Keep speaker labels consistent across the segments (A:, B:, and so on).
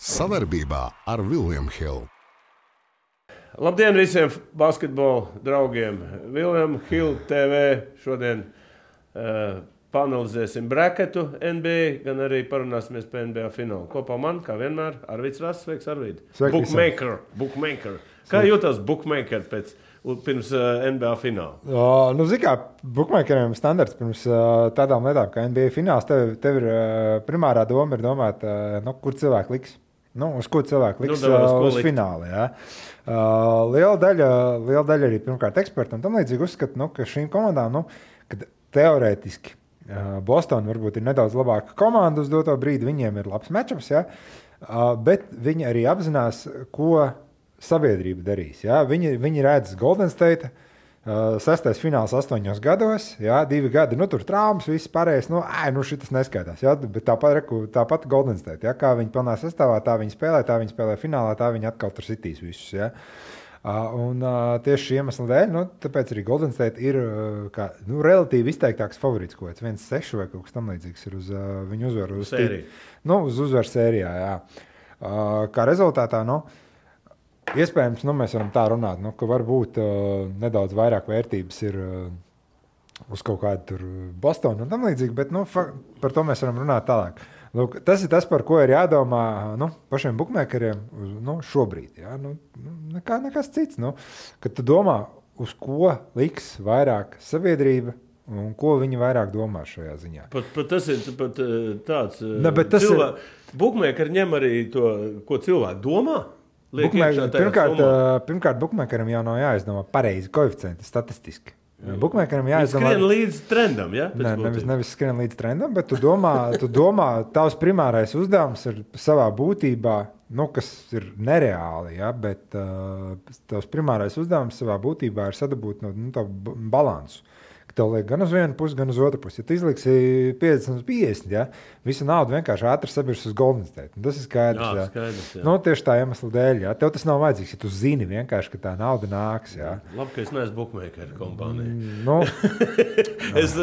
A: Savarbībā ar William Hill.
B: Labdien visiem basketbola draugiem! William Hill TV šodien panelizēsim braketu NBA, gan arī parunāsimies par NBA finālu. Kopā man, kā vienmēr, Arvids Rass. Sveiks, Arvid! Bookmaker. Kā jūtas bookmaker pirms NBA fināla?
C: Zini kā, bookmakeriem standarts pirms tādām lietām kā NBA fināls, tev ir primārā doma ir domāt, kur cilvēki liks. Uz ko cilvēki liks uz finālu. Ja? Liela daļa arī pirmkārt eksperti un tam līdzīgi uzskata, ka šīm komandām, kad teorētiski Boston varbūt ir nedaudz labāka komanda uz doto brīdi, viņiem ir labs matchups, ja? Bet viņi arī apzinās, ko sabiedrība darīs. Ja? Viņi redz Golden State, 6. fināls 8 gados, ja? 2 gadi, tur traumas, viss pārējais, šitas neskaitās. Ja? Bet tāpat Golden State, ja? Kā viņi pilnā sastāvā, tā viņi spēlē finālā, tā viņi atkal tur sitīs visus. Ja? Un tieši šī iemesla dēļ, tāpēc arī Golden State ir relatīvi izteiktāks favorīts, ko 1-6 vai kaut kas tam līdzīgs ir uz viņu uzvaru. Uz uzvaru sērijā, jā. Kā rezultātā, iespējams, mēs varam tā runāt, ka varbūt nedaudz vairāk vērtības ir uz kaut kādu tur Bostonu un tam līdzīgi, bet par to mēs varam runāt tālāk. Lūk, tas ir tas, par ko ir jādomā pašiem bookmakeriem šobrīd. Ja? Nekas cits. Kad tu domā, uz ko liks vairāk sabiedrība un ko viņi vairāk domā šajā ziņā.
B: Tas ir tāds bookmakeri ņem arī to, ko cilvēki domā.
C: Pirmkārt, bookmakeram jau nav jāizdomā pareizi koeficienti statistiski. Bookmakeram jāizdomā.
B: Skrien līdz trendam, ja?
C: Nevis skrien līdz trendam, bet tu domā, tavs primārais uzdevums ir savā būtībā, kas ir nereāli, ja? Bet tavs primārais uzdevums savā būtībā ir sadabūt tavu balansu. Tev liek gan uz vienu pusi, gan uz otru pusi. Ja tu izliksi 50-50, ja? Visu naudu vienkārši ātri sabirs uz Golden State. Tas ir skaidrs. Jā. Tieši tā iemesla dēļ. Ja? Tev tas nav vajadzīgs, ja tu zini vienkārši, ka tā nauda nāks. Ja?
B: Labi, ka es neesmu bookmaker kompānija. Es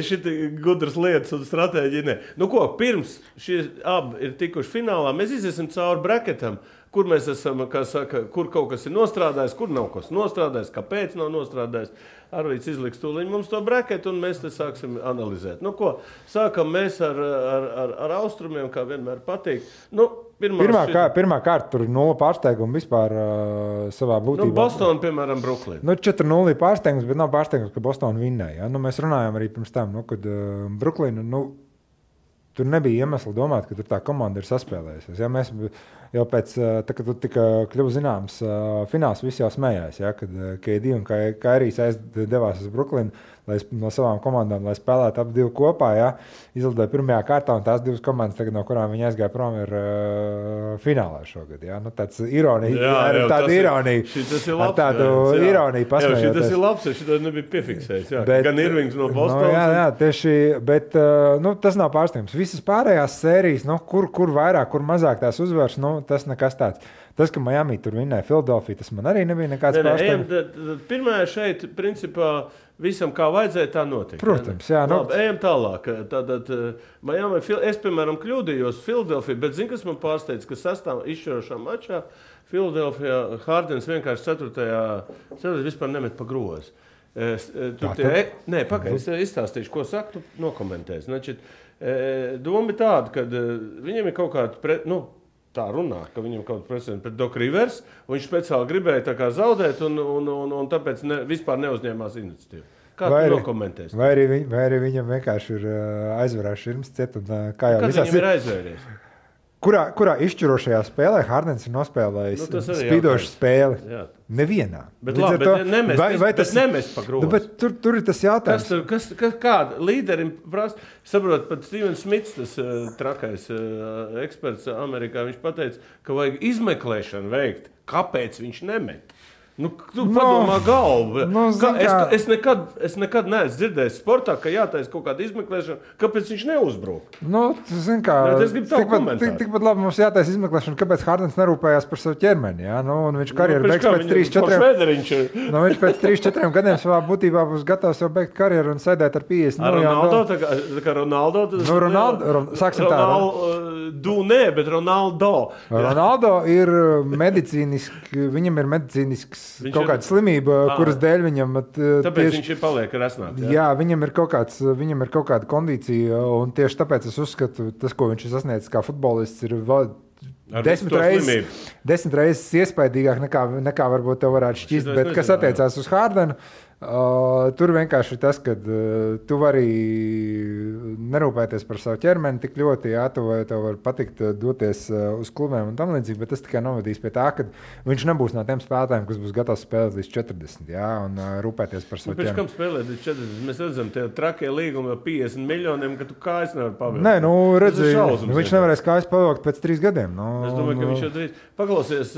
B: šiti gudras lietas un stratēģiju ne. Pirms šie abi ir tikuši finālā, mēs iziesim cauri braketam, kur mēs esam, kā saka, kur kaut kas ir nostrādājis, kur nav kas nostrādājis, kāpēc nav nostrādājis. Arvīds izliks tūliņ mums to braketu, un mēs te sāksim analizēt. Sākam mēs ar austrumiem, kā vienmēr patīk.
C: Pirmā kārta tur 0 pārsteigumu vispār savā būtībā.
B: Boston, piemēram, Brooklyn.
C: 4-0 pārsteigums, bet nav pārsteigums, ka Boston vinnēja. Ja? Mēs runājām arī pirms tam, kad Brooklyn, tur nebija iemesla domāt, ka tur tā komanda ir saspēlējusies. Ja? Mēs jau pēc, kad tika kļuva zināms fināls, visi jau smējās, ja? Kad KD un Kairijs devās uz Brooklynu no savām komandām, lai spēlētu ap divu kopā. Ja? Izlidoja pirmajā kārtā, un tās divas komandas, tagad, no kurām viņi aizgāja prom, ir finālā šogad. Ja? Tāds ironija, tāda ironija.
B: Šitas ir labs.
C: Tādu ironiju pasmējoties.
B: Šitas ir labs, šitā nebija piefiksējis. Gan Irvings no Bostonas.
C: Jā, tieši, bet tas nav pārsteigums. Visas pārējās sērijas, kur vairāk, kur mazāk tās uzvaras, tas nekas tāds. Tas, ka Miami tur vinnēja Philadelphia, tas man arī nebija nekāds pārsteigums.
B: Pirmā šeit, principā, visam kā vajadzēja, tā notika.
C: Protams, jā.
B: Labi, ejam tālāk. Tātad, Miami, es, piemēram, kļūdījos Philadelphia, bet zini, kas man pārsteidz, ka sastāv izšķirošā mačā Philadelphia Hardens vienkārši 4. vispār nemet pa grozu. Pagaid, es izstāstīšu, ko saka, tu nokomentēsi. Doma ir tāda, ka viņiem ir kaut kāda tā runā, ka viņam kaut kāda precedenta pret Doc Rivers, un viņš speciāli gribēja tā kā zaudēt, un tāpēc vispār neuzņēmās iniciatīvu. Kā tu nokomentēsi?
C: Vai arī viņam vienkārši ir aizvarās širms ciet, un kā jau
B: visās ir aizvēries?
C: Kurā izšķirošajā spēlē Hardens ir nospēlējis spīdošu spēli? Jā. Nevienā.
B: Bet nemest pa grozu.
C: Bet tur ir tas jautājums.
B: Kāda līderim prasa? Saprot, pat Steven Smits, tas trakais eksperts Amerikā, viņš pateica, ka vajag izmeklēšanu veikt, kāpēc viņš nemet. Tu padomā galvu. Es nekad neesmu dzirdējis sportā, ka jātaisa kaut kāda izmeklēšana, kāpēc viņš neuzbruk. Es gribu tavu komentāru.
C: Tikpat labi mums jātaisa izmeklēšana, kāpēc Hardens nerūpējās par savu ķermeni. Ja? Un viņš karjeru beigs pēc 3-4 viņš pēc 3-4 gadiem savā būtībā būs gatavs jau beigt karjeru un sēdēt ar 50
B: Ronaldo, tā kā Ronaldo.
C: Sāksim tā.
B: Bet Ronaldo.
C: Ronaldo ir viņam ir medicīnisks kaut kāda slimība, kuras dēļ viņam...
B: Tāpēc viņš paliek resnāt.
C: Jā, viņam ir kaut kāda kondīcija, un tieši tāpēc es uzskatu, tas, ko viņš ir sasniedzis kā futbolists, ir 10 reizes iespaidīgāk nekā varbūt tev varētu šķist, bet kas attiecās uz Hardenu, tur vienkārši tas, ka tu vari nerūpēties par savu ķermeni tik ļoti, jā, tev var patikt doties uz klubiem un tam līdzīgi, bet tas tikai novadīs pie tā, ka viņš nebūs no tiem spēlētājiem, kas būs gatavs spēlēt līdz 40, jā, un rūpēties par savu ķermeni.
B: Pēc kam spēlēt līdz 40? Mēs redzam, tie trakie līgumi ar 50 miljoniem, ka tu kājas nevar pavilkt.
C: Nē, redzi, viņš nevarēs kājas pavilkt pēc 3 gadiem.
B: Es domāju, ka viņš jau drīz. Paklausies,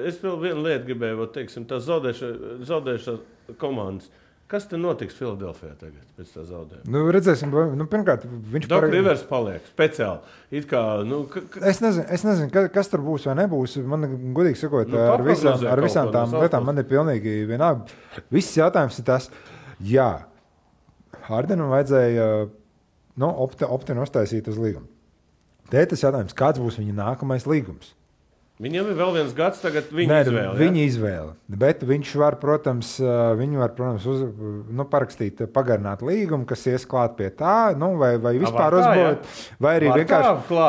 B: es vēl vienu lietu gribēju, teiksim, tā zaudējušā komandas. Kas te notiks Filadelfijā tagad pēc tā zaudējuma?
C: Redzēsim, pirmkārt, viņš
B: Doc Rivers paliek speciāli. It kā,
C: Es nezinu, kas tur būs vai nebūs. Man, godīgi sakot, ar visām tām lietām man ir pilnīgi vienalga. Viss jautājums ir tas, jā, Hardenam vajadzēja opti uztaisīt uz līgumu. Te tas jautājums, kāds būs viņa nākamais līgums?
B: Viņam ir vēl viens gads, tagad izvēle.
C: Viņa izvēle. Bet viņš var, protams, parakstīt, pagarināt līgumu, kas ies klāt pie tā, vai vispār uzbūvēt, vai arī vienkārši.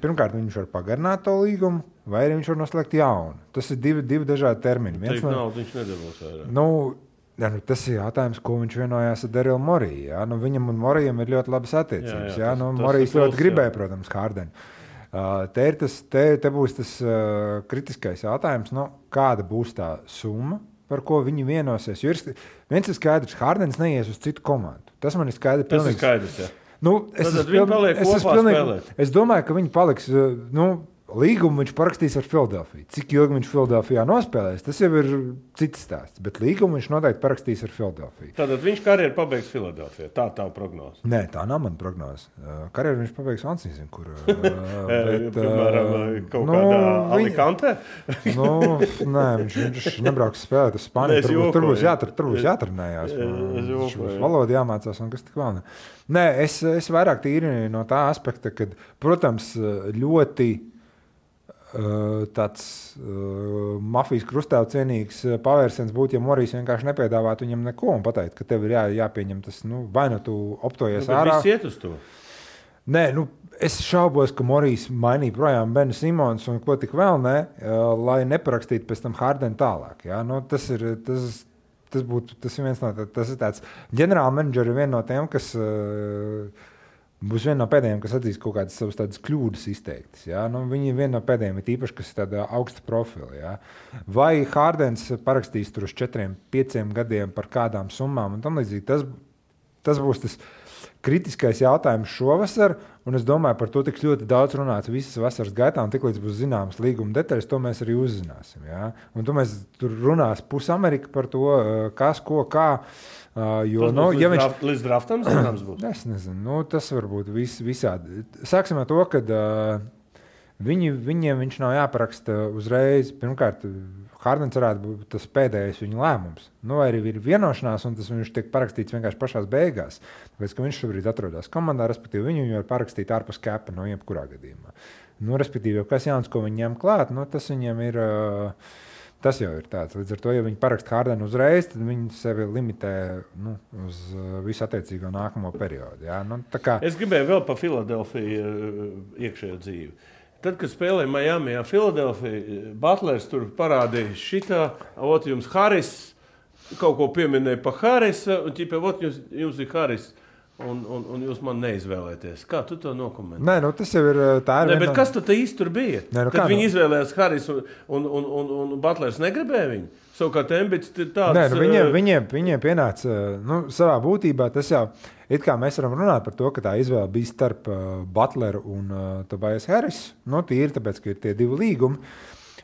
C: Pirmkārt, viņš var pagarināt to līgumu, vai arī viņš var noslēgt jaunu. Tas ir divi dažādi termini.
B: Viņš nedabūs vairāk.
C: Tas ir jautājums, ko viņš vienojās ar Darilu Moriju. Ja? Viņam un Morijam ir ļoti labas attiecības. Morijs ļoti gribēja, protams, Hardenu. Te būs tas kritiskais jautājums, kāda būs tā summa, par ko viņi vienosies. Jo viens ir skaidrs, Hardens neies uz citu komandu. Tas man ir skaidrs.
B: Tas ir skaidrs, jā.
C: Es domāju, ka viņi paliks... Līgumu viņš parakstīs ar Filadelfiju. Cik ilgi viņš Filadelfijā nospēlēs, tas jau ir cits stāsts. Bet līgumu viņš noteikti parakstīs ar Filadelfiju.
B: Tātad viņš karjeru pabeigs Filadelfijā. Tā tā prognoze.
C: Nē, tā nav mana prognoze. Karjeru viņš pabeigs Ansīzin, kur...
B: Piemēram, kaut kādā Alicante?
C: Nē, viņš nebrauks spēlēt uz Spāniju. Tur būs jātrenējās. Viņš būs valoda jāmācās un kas tik vēl ne. Nē, es vairāk tīri no tā aspekta, kad, protams, ļoti tāds mafijas krustēvu cienīgs pavērsiens būtu, ja Morijs vienkārši nepiedāvātu viņam neko un pateikt, ka tev ir jāpieņem tas, vai tu optojies ārā.
B: Viss iet uz to?
C: Nē, es šaubos, ka Morijs mainīja projām Benu Simons un ko tik vēl ne, lai neparakstītu pēc tam Hardenu tālāk. Ja? Tas ir viens no tas ir tāds ģenerāla menedžeri viena no tiem, kas būs viena no pēdējiem, kas atzīs kaut kādas savas tādas kļūdas izteiktas. Ja? Viņi viena no pēdējiem ir īpaši, kas ir tāda augsta profila. Ja? Vai Hardens parakstīs tur uz 4-5 gadiem par kādām summām un tam līdzīgi. Tas būs tas kritiskais jautājums šovasar, un es domāju, par to tiks ļoti daudz runāts visas vasaras gaitā, un tiklīdz būs zināmas līguma detaļas, to mēs arī uzzināsim. Ja? Un tur runās pusamerika par to, kas, ko, kā.
B: Līdz draftam zināms būs?
C: Es nezinu, tas varbūt visādi. Sāksim ar to, ka viņiem viņš nav jāparaksta uzreiz. Pirmkārt, Hardens varētu būt tas pēdējais viņa lēmums. Vai arī ir vienošanās, un tas viņš tiek parakstīts vienkārši pašās beigās. Tāpēc, ka viņš šobrīd atrodas komandā, respektīvi viņu var parakstīt ārpus kepa no jebkurā gadījumā. Respektīvi, kas jauns, ko viņi ņem klāt, tas viņam ir... Tas jau ir tāds. Līdz ar to, ja viņi paraksta Hardenu uzreiz, tad viņi sevi limitē uz visu attiecīgo nākamo periodu. Ja?
B: Es gribēju vēl par Filadelfiju iekšējo dzīvi. Tad, kad spēlēja Miamijā Filadelfija, Butlers tur parādīja šitā, jums Haris, kaut ko pieminēja par Harisa, un jums ir Haris. Un jūs man neizvēlēties. Kā tu to nokomentē?
C: Nē, tas jau ir tā.
B: Bet kas tad īsti tur bija? Tad viņi izvēlējās Haris un Butlers negribēja viņu? Savukārt Embits ir tāds...
C: Viņiem pienāca, savā būtībā tas jau, it kā mēs varam runāt par to, ka tā izvēle bija starp Butleru un Tobias Harris. Tīri tāpēc, ka ir tie divi līgumi.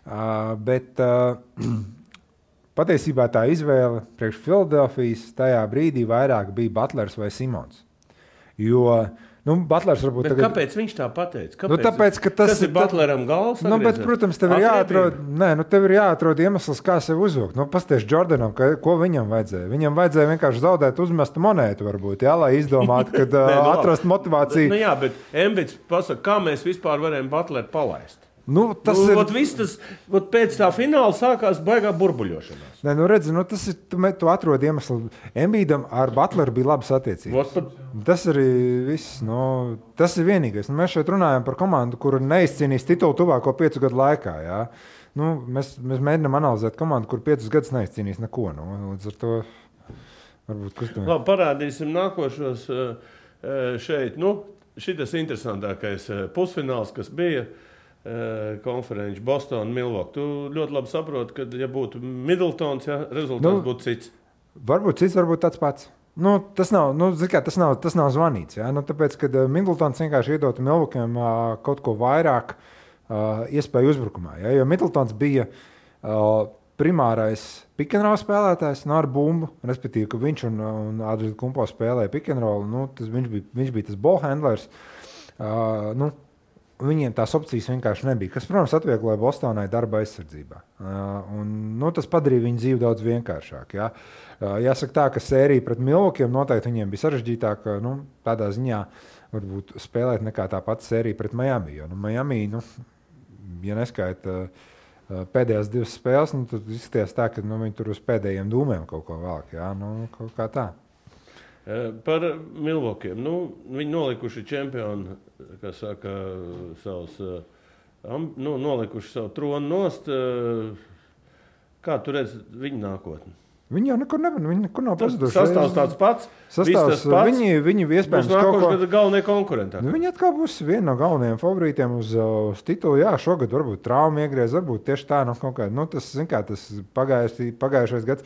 C: Bet patiesībā tā izvēle priekš Filadelfijas tajā brīdī vairāk bija Butlers vai Simons. Jo Butlers varbūt
B: tagad... Kāpēc viņš tā pateica?
C: Tāpēc, ka tas
B: ir Butleram galvas?
C: Bet, protams, tev ir jāatrod iemesls, kā sevi uzvilkt. Pasties Jordanam, ko viņam vajadzēja? Viņam vajadzēja vienkārši zaudēt uzmestu monētu, varbūt, lai izdomātu, kad atrast motivāciju.
B: Jā, bet Embits pasaka, kā mēs vispār varējām Butleru palaist? Pēc tā fināla sākās baigā burbuļošanās.
C: Redzi, tas ir, tu atrod iemeslu. Embīdam ar Butleru bija labas attiecības. Tas arī viss. Tas ir vienīgais. Mēs šeit runājam par komandu, kura neizcīnīs titulu tuvāko 5 gadu laikā. Jā. Mēs mēģinām analizēt komandu, kur 5 gadus neizcīnīs neko. Līdz ar to varbūt kustam.
B: Labi, parādīsim nākošos šeit. Šitas interesantākais pusfināls, kas bija. Konferenci Boston, Milwaukee. Tu ļoti labi saproti, ka, ja būtu Middletons, rezultāts būtu cits.
C: Varbūt cits, varbūt tāds pats. Tas nav zvanīts. Ja? Tāpēc, kad Middletons vienkārši iedotu Milwaukee'am kaut ko vairāk iespēju uzbrukumā. Ja? Jo Middletons bija primārais pick-and-roll spēlētājs ar bumbu, respektīvi, ka viņš un Adrian Kumpo spēlēja pick-and-roll. Viņš bija tas ballhandlers. Viņiem tās opcijas vienkārši nebija, kas, protams, atviegloja Bostonai darba aizsardzībā. Tas padarīja viņu dzīvi daudz vienkāršāk. Ja? Jāsaka tā, ka sērija pret Milwaukee'iem noteikti viņiem bija sarežģītāka, tādā ziņā varbūt spēlēt nekā tā pati sērija pret Miami. Jo Miami, ja neskaita pēdējās 2 spēles, tad izskatījās tā, ka viņi tur uz pēdējiem dūmiem kaut ko velk. Ja? Kaut kā tā.
B: Par Milwaukee'iem. Viņi nolikuši čempionu, kas saka, nolikuši savu tronu nost. Kā tu redzi viņu nākotni?
C: Viņi jau nekur nav pazuduši.
B: Sastāvs tāds pats.
C: Viņi iespējams
B: kaut ko galvenie konkurenti.
C: Viņi atkal būs viena no galvenajiem favorītiem uz titulu. Jā, šogad varbūt trauma iegriez, varbūt tieši tā kaut kā. Tas pagājušais gads.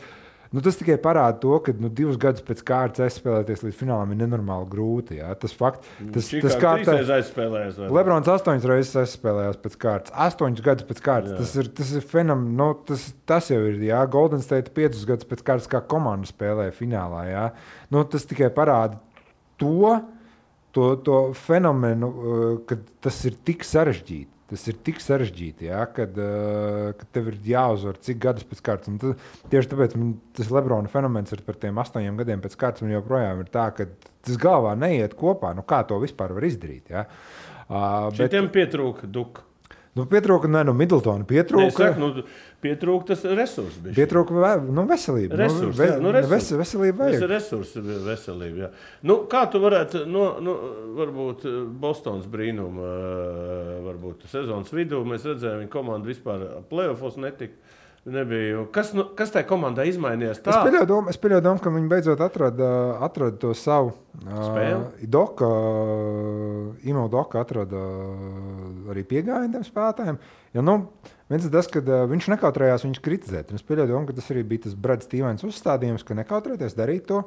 C: Tas tikai parāda to, ka 2 gadus pēc kārtas aizspēlēties līdz finālam ir nenormāli grūti. Jā. Tas fakts, tas kārtā
B: aizspēlējās.
C: Lebrons 8 reizes aizspēlējās pēc kārtas. 8 gadus pēc kārtas. Tas ir fenomenāli. Tas jau ir. Jā. Golden State 5 gadus pēc kārtas kā komanda spēlēja finālā. Jā. Tas tikai parāda to fenomenu, ka tas ir tik sarežģīti. Tas ir tik sarežģīti, ja, kad tev ir jāuzvar cik gadus pēc kārtas. Tieši tāpēc tas Lebrona fenomens ir par tiem 8 gadiem pēc kārtas. Man joprojām ir tā, ka tas galvā neiet kopā. Kā to vispār var izdarīt? Ja?
B: Šitiem pietrūka duka.
C: Pietrūka, Middletona pietrūka.
B: Pietrūka tas resurs.
C: Pietrūka veselība. Veselība vajag.
B: Veselība, jā. Kā tu varētu, varbūt Bostons brīnumu, varbūt sezonas vidū, mēs redzējām, viņa komanda vispār playoffos nebija. Kas tajā komandā izmainījās tā?
C: Es pieļauju domu, ka viņi beidzot atrada to savu spēli. Imo Doka atrada arī piegājienu tiem spēlētājiem. Jo, viens ir tas, ka viņš nekautrējās viņus kritizēt. Es pieļauju domu, ka tas arī bija tas Brad Stevens uzstādījums, ka nekautrēties darīt to,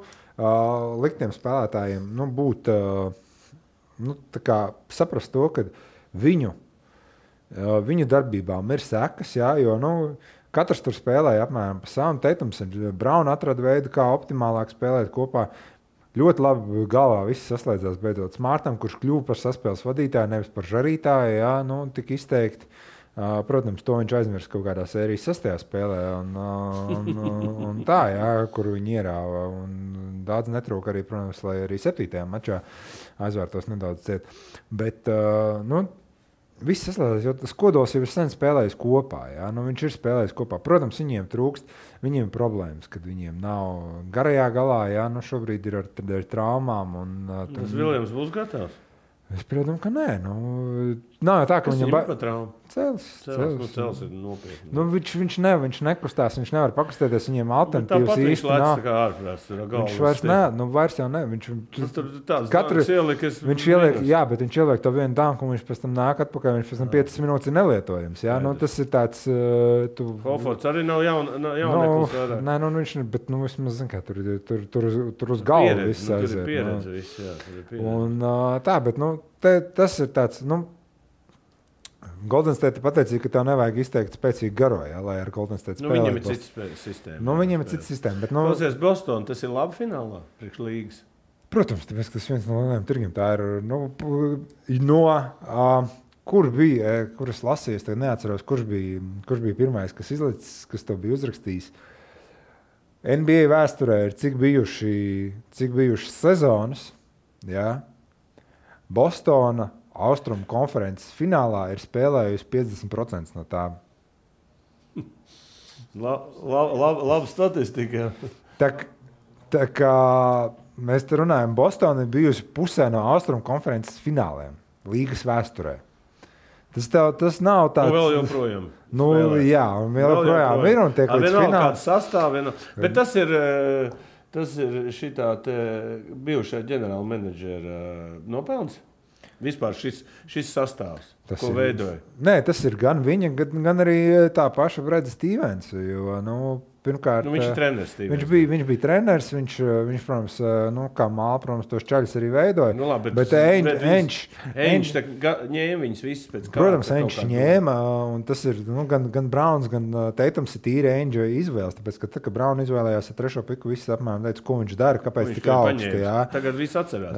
C: likt tiem spēlētājiem būt, saprast to, ka viņu darbībām ir sekas, jā, jo, katrs tur spēlēja apmēram pa savam. Teitums ir Braun atrada veidu, kā optimālāk spēlēt kopā. Ļoti labi galvā viss saslēdzās beidzot Smartam, kurš kļuva par saspēles vadītāju, nevis par žarītāju, jā, tik izteikti. Protams, to viņš aizmirst kaut kādā sērijas 6. spēlē un tā, jā, kur viņi ierāva. Un daudz netrūka arī, protams, lai arī 7. mačā aizvērtos nedaudz ciet. Bet, viss saslēdzās, jo tas kodols jau ir sen spēlējis kopā. Ja? Viņš ir spēlējis kopā. Protams, viņiem trūkst, viņiem ir problēmas, kad viņiem nav garajā galā. Ja? Šobrīd ir ar traumām.
B: Tas Viljams būs gatavs?
C: Es piedomu, ka nē. Nav tā, ka
B: viņam ir trauma.
C: Cels
B: ir nopietni.
C: Viņš nekustās, viņš nevar pakustēties, viņiem alternatīvas īsti nav. Viņš vairs jau ne. Viņš ieliek to vienu danku, un viņš pēc tam nāk atpakaļ, viņš pēc tam 5 minūtes ir nelietojams. Ja? Tas ir tāds...
B: Hofords arī nav jauneklis vairāk.
C: Nē, viņš, bet vismaz, zin kā, tur uz galvu viss aiziet.
B: Tur ir pieredze viss, jā.
C: Un tā, bet, tas ir tāds, Golden State pateica, ka tev nevajag izteikt spēcīgu garo, lai ar Golden State spēlētu.
B: Viņam ir cits sistēma.
C: Viņam ir cits sistēma. Bet,
B: klausies, Boston, tas ir labi finālā priekš līgas?
C: Protams, tāpēc, ka tas viens no lielajiem tirgiem. Tā ir, kur bija, kur es lasīju, es neatceros, kurš bija pirmais, kas izlicis, kas to bija uzrakstījis. NBA vēsturē ir cik bijušas sezonas, jā. Bostona Austrumu konferences finālā ir spēlējusi 50% no tām.
B: Laba statistika.
C: Tā kā mēs te runājam, Bostona ir bijusi pusē no Austrumu konferences fināliem līgas vēsturē. Tas nav tāds...
B: Vēl joprojām.
C: Jā, un vēl joprojām ir un tiek līdz finālam.
B: Kāds sastāv, bet tas ir šitā bijušā ģenerāla menedžera nopelns? Vispār šis sastāvs, ko veidoja?
C: Nē, tas ir gan viņa, gan arī tā paša Breda Stevens. Jo, pirmkārt,
B: viņš ir treneris.
C: Viņš bija treneris, viņš protams, kā māla, protams, tos čaļus arī veidoja.
B: Labi,
C: bet Enč
B: ņēma viņus visus pēc kā.
C: Protams, Enč ņēma, un tas ir gan Browns, gan Teitums ir tīri Enča izvēles, tāpēc, ka tā, ka Brown izvēlējās ar 3. piku, visi apmēram teica, ko viņš dara, kāpēc tik augsti.
B: Tagad viss atcerās.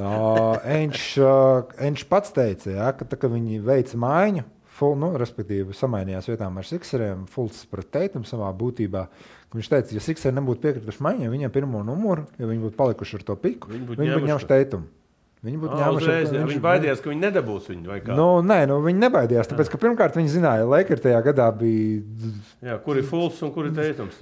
C: Enč pats teica, ka tā, ka viņi veica maiņu, respektīvi samainījās vietām ar Sixeriem, Fultz pret Teitumu savā būtībā. Viņš teica, ja Sixeri nebūtu piekrituši maiņai, viņiem pirmo numuru, ja viņi būtu palikuši ar to piku, viņi būtu ņēmuši Teitumu.
B: Viņi baidījās, ka viņi nedabūs viņu vai kā?
C: Viņi nebaidījās, tāpēc, ka pirmkārt viņi zināja, Lakers tajā gadā bija...
B: Jā, kur ir Fultz un kur ir Teitums?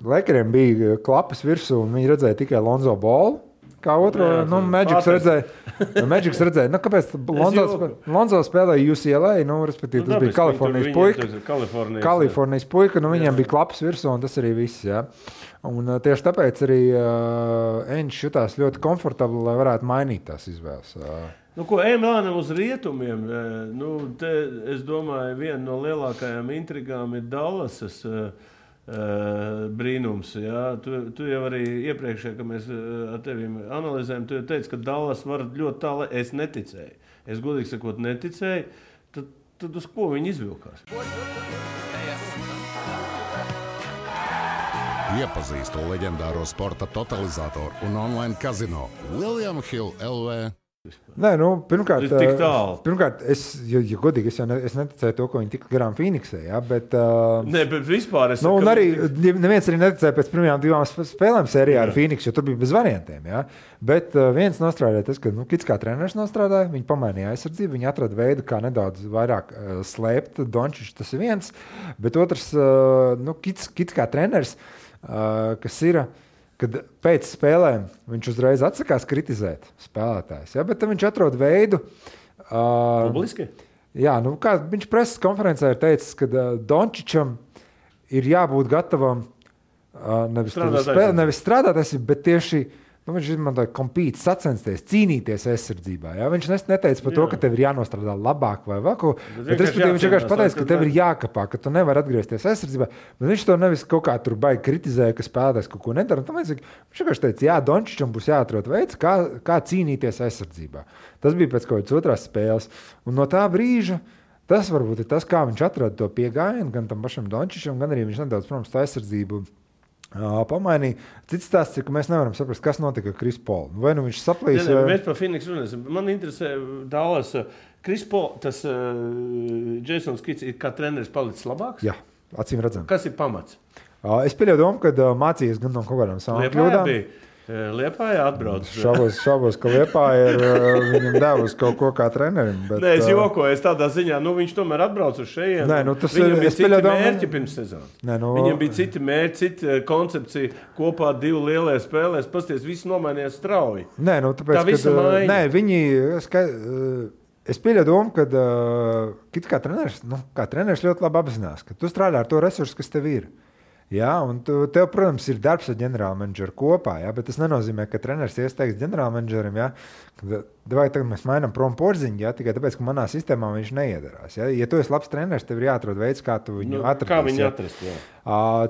C: Lakeriem bija klapas virsū un viņi redzēja tikai Lonzo Ballu. Kā otro, Magics redzēja, kāpēc Lonzo spēlēja UCLA, respektīvi, tas bija Kalifornijas puika, viņiem bija klaps virsū, un tas arī viss, jā. Un tieši tāpēc arī Enč jutās ļoti komfortabli, lai varētu mainīt tās izvēles.
B: Ejam uz rietumiem, es domāju, viena no lielākajām intrigām ir Dallasas brīnums. Jā. Tu jau arī iepriekšējā, kad mēs ar tevi analizējam, tu jau teici, ka Dallas var ļoti tālu. Es neticēju. Es godīgi sakot neticēju. Tad uz ko viņi izvilkās?
A: Iepazīstu leģendāro sporta totalizatoru un online kazino William Hill LV.
C: Nē, pirmkārt, es godīgi, es neticēju to, ko viņi tika garām Phoenixē, jā, bet...
B: Nē, bet vispār es...
C: un arī neviens arī neticēja pēc pirmajām 2 spēlēm sērijā ar Phoenix, jo tur bija bez variantiem, jā. Bet viens nostrādāja tas, ka Kits kā treneris nostrādāja, viņi pamainīja aizsardzību, viņi atrada veidu, kā nedaudz vairāk slēpt Dončičs, tas ir viens, bet otrs, Kits kā treneris, kas ir... Kad pēc spēlēm viņš uzreiz atsakās kritizēt spēlētājs, ja? Bet tad viņš atrod veidu.
B: Publiski?
C: Jā, kā viņš preses konferencē ir teicis, ka Dončičam ir jābūt gatavam nevis strādāt, bet tieši viņš izmantoja kompīt, sacensties, cīnīties aizsardzībā. Ja? Viņš neteica par to, ka tev ir jānostrādā labāk vai vēl ko. Bet viņš vienkārši pateica, ka tev ir jākapā, ka tu nevari atgriezties aizsardzībā. Bet viņš to nevis kaut kā tur baigi kritizēja, ka spēlētājs kaut ko nedara. Viņš vienkārši teica, jā, Dončičam būs jāatrod veids, kā cīnīties aizsardzībā. Tas bija pēc kaut kādas otrās spēles. Un no tā brīža tas varbūt ir tas, kā viņš atrada to piegājienu gan tam pašam Dončičam, gan arī viņš nedaudz, protams, tā aizsardzību pamainīja. Cits stāsts ir, ka mēs nevaram saprast, kas notika ar Chris Paul. Vai viņš saplīs?
B: Mēs par Phoenix runāsim. Man interesē Dallas. Chris Paul, tas Jasons Kits ir kā treneris palicis labāks?
C: Jā, acīm redzam.
B: Kas ir pamats?
C: Es pieļauju domu, kad mācījies gan no kaut kādām savām kļūdām.
B: Liepājā atbrauc.
C: Šaubos, ka Liepāja ir viņam devusi kaut ko kā trenerim. Bet,
B: nē, es jokoju, tādā ziņā, viņš tomēr atbrauc uz šejien. Viņam bija citi mērķi pirms sezonas. Viņam bija citi mērķi, cita koncepcija kopā 2 lielie spēlēs. Pasties, viss nomainījās strauji.
C: Nē, tāpēc,
B: tā visa maiņa.
C: Nē, viņi... Es pieļauju domu, ka kā treneris ļoti labi apzinās, ka tu strādā ar to resursu, kas tev ir. Jā, un tev, protams, ir darbs ar ģenerālmenedžeru kopā, jā, bet tas nenozīmē, ka treneris iesteigs ģenerālmenedžerim, jā, vai tagad mēs mainām prom Porziņu, jā, tikai tāpēc, ka manā sistēmā viņš neiedarās. Jā. Ja tu esi labs treneris, tev ir jāatrod veids, kā tu viņu atradīs.
B: Kā viņu atrast, jā.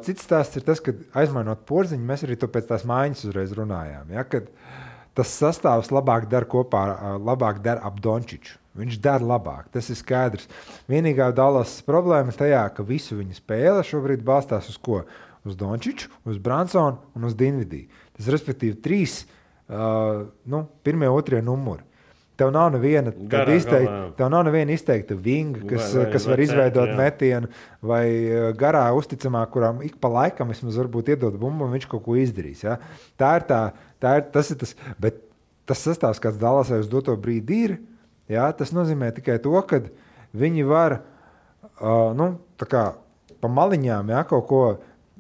C: Cits stāsts ir tas, ka aizmainot Porziņu, mēs arī to pēc tās mājas uzreiz runājām, jā, kad tas sastāvs labāk dar ap Dončiču. Viņš dara labāk, tas ir skaidrs. Vienīgā Dallas problēma tajā, ka visu viņa spēle šobrīd balstās uz ko? Uz Dončiču, uz Bransonu un uz Dinvidiju. Tas respektīvi 3, pirmie, otrie numuri. Tev nav neviena izteikta vinga, kas var izveidot metienu, vai garā uzticamā, kurām ik pa laikam vismaz varbūt iedod bumbu, un viņš kaut ko izdarīs. Ja? Tas ir tas, bet tas sastāvs, kāds Dallasai uz doto brīdi ir, ja? Tas nozīmē tikai to, ka viņi var tā kā pa maliņām, ja, kaut ko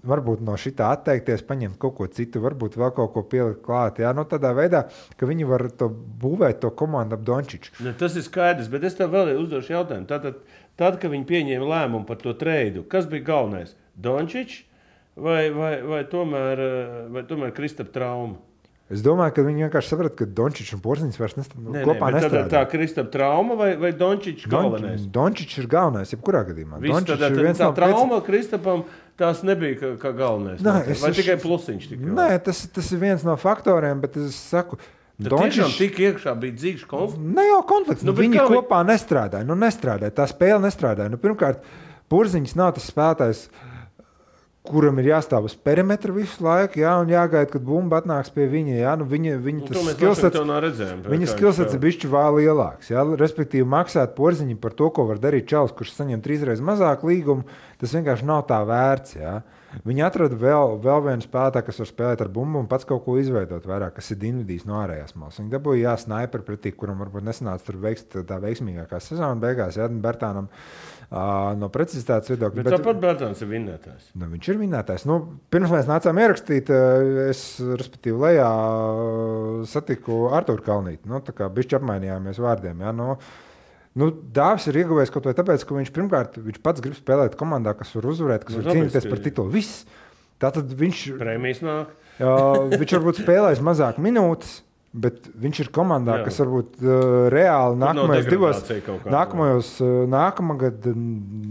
C: varbūt no šitā atteikties, paņemt kaut ko citu, varbūt vēl kaut ko pielikt klāt. Jā, tādā veidā, ka viņi var būvēt to komandu ap Dončiču.
B: Ne, tas ir skaidrs, bet es tev vēl uzdošu jautājumu. Tad, kad viņi pieņēma lēmumu par to treidu, kas bija galvenais? Dončičs vai tomēr Kristapa trauma?
C: Es domāju, ka viņi vienkārši saprata, ka Dončičs un Porziņš vairs kopā nestrādā.
B: Tā Kristapa trauma vai Dončičs galvenais?
C: Dončičs ir galvenais, jebkurā gadījumā.
B: Tā trauma Kristapam tās nebija kā galvenais. Vai tikai plusiņš?
C: Nē, tas ir viens no faktoriem, bet es saku,
B: Dončičs tik iekšā bija dzīves konflikts?
C: Ne jau konflikts, viņi kopā nestrādāja. Tā spēle nestrādāja. Pirmkārt, Porziņš nav tas spēlētājs, kuram ir jāstāv uz perimetra visu laiku, jā, un jāgaida, kad bumba atnāks pie viņa. Jā, viņa skillsets ir bišķi vēl lielāks. Jā, respektīvi, maksāt Porziņam par to, ko var darīt čalis, kurš saņem 3 reizes mazāk līgumu, tas vienkārši nav tā vērts. Jā. Viņi atrada vēl vienu spēlētāju, kas var spēlēt ar bumbu un pats kaut ko izveidot vairāk, kas ir Dinvidijs no ārējās malas. Viņi dabūja snaiperu pretī, kuram varbūt nesanāca tur tā veiksmīgākā sezona beigās, jā, Bertānam. No precizitātes viedokļa.
B: Bet tāpat Bertāns ir vinnētājs.
C: Viņš ir vinnētājs. Pirms mēs nācām ierakstīt, es, respektīvi, lejā satiku Arturu Kalnīti. Tā kā bišķi apmainījāmies vārdiem. Ja? Dāvis ir ieguvējis kaut vai tāpēc, ka viņš pats grib spēlēt komandā, kas var uzvarēt, kas var cīnīties par titulu. Viss. Tātad viņš...
B: Prēmijas nāk.
C: Viņš varbūt spēlēs mazāk minūtes, bet viņš ir komandā, kas varbūt reāli nākamgad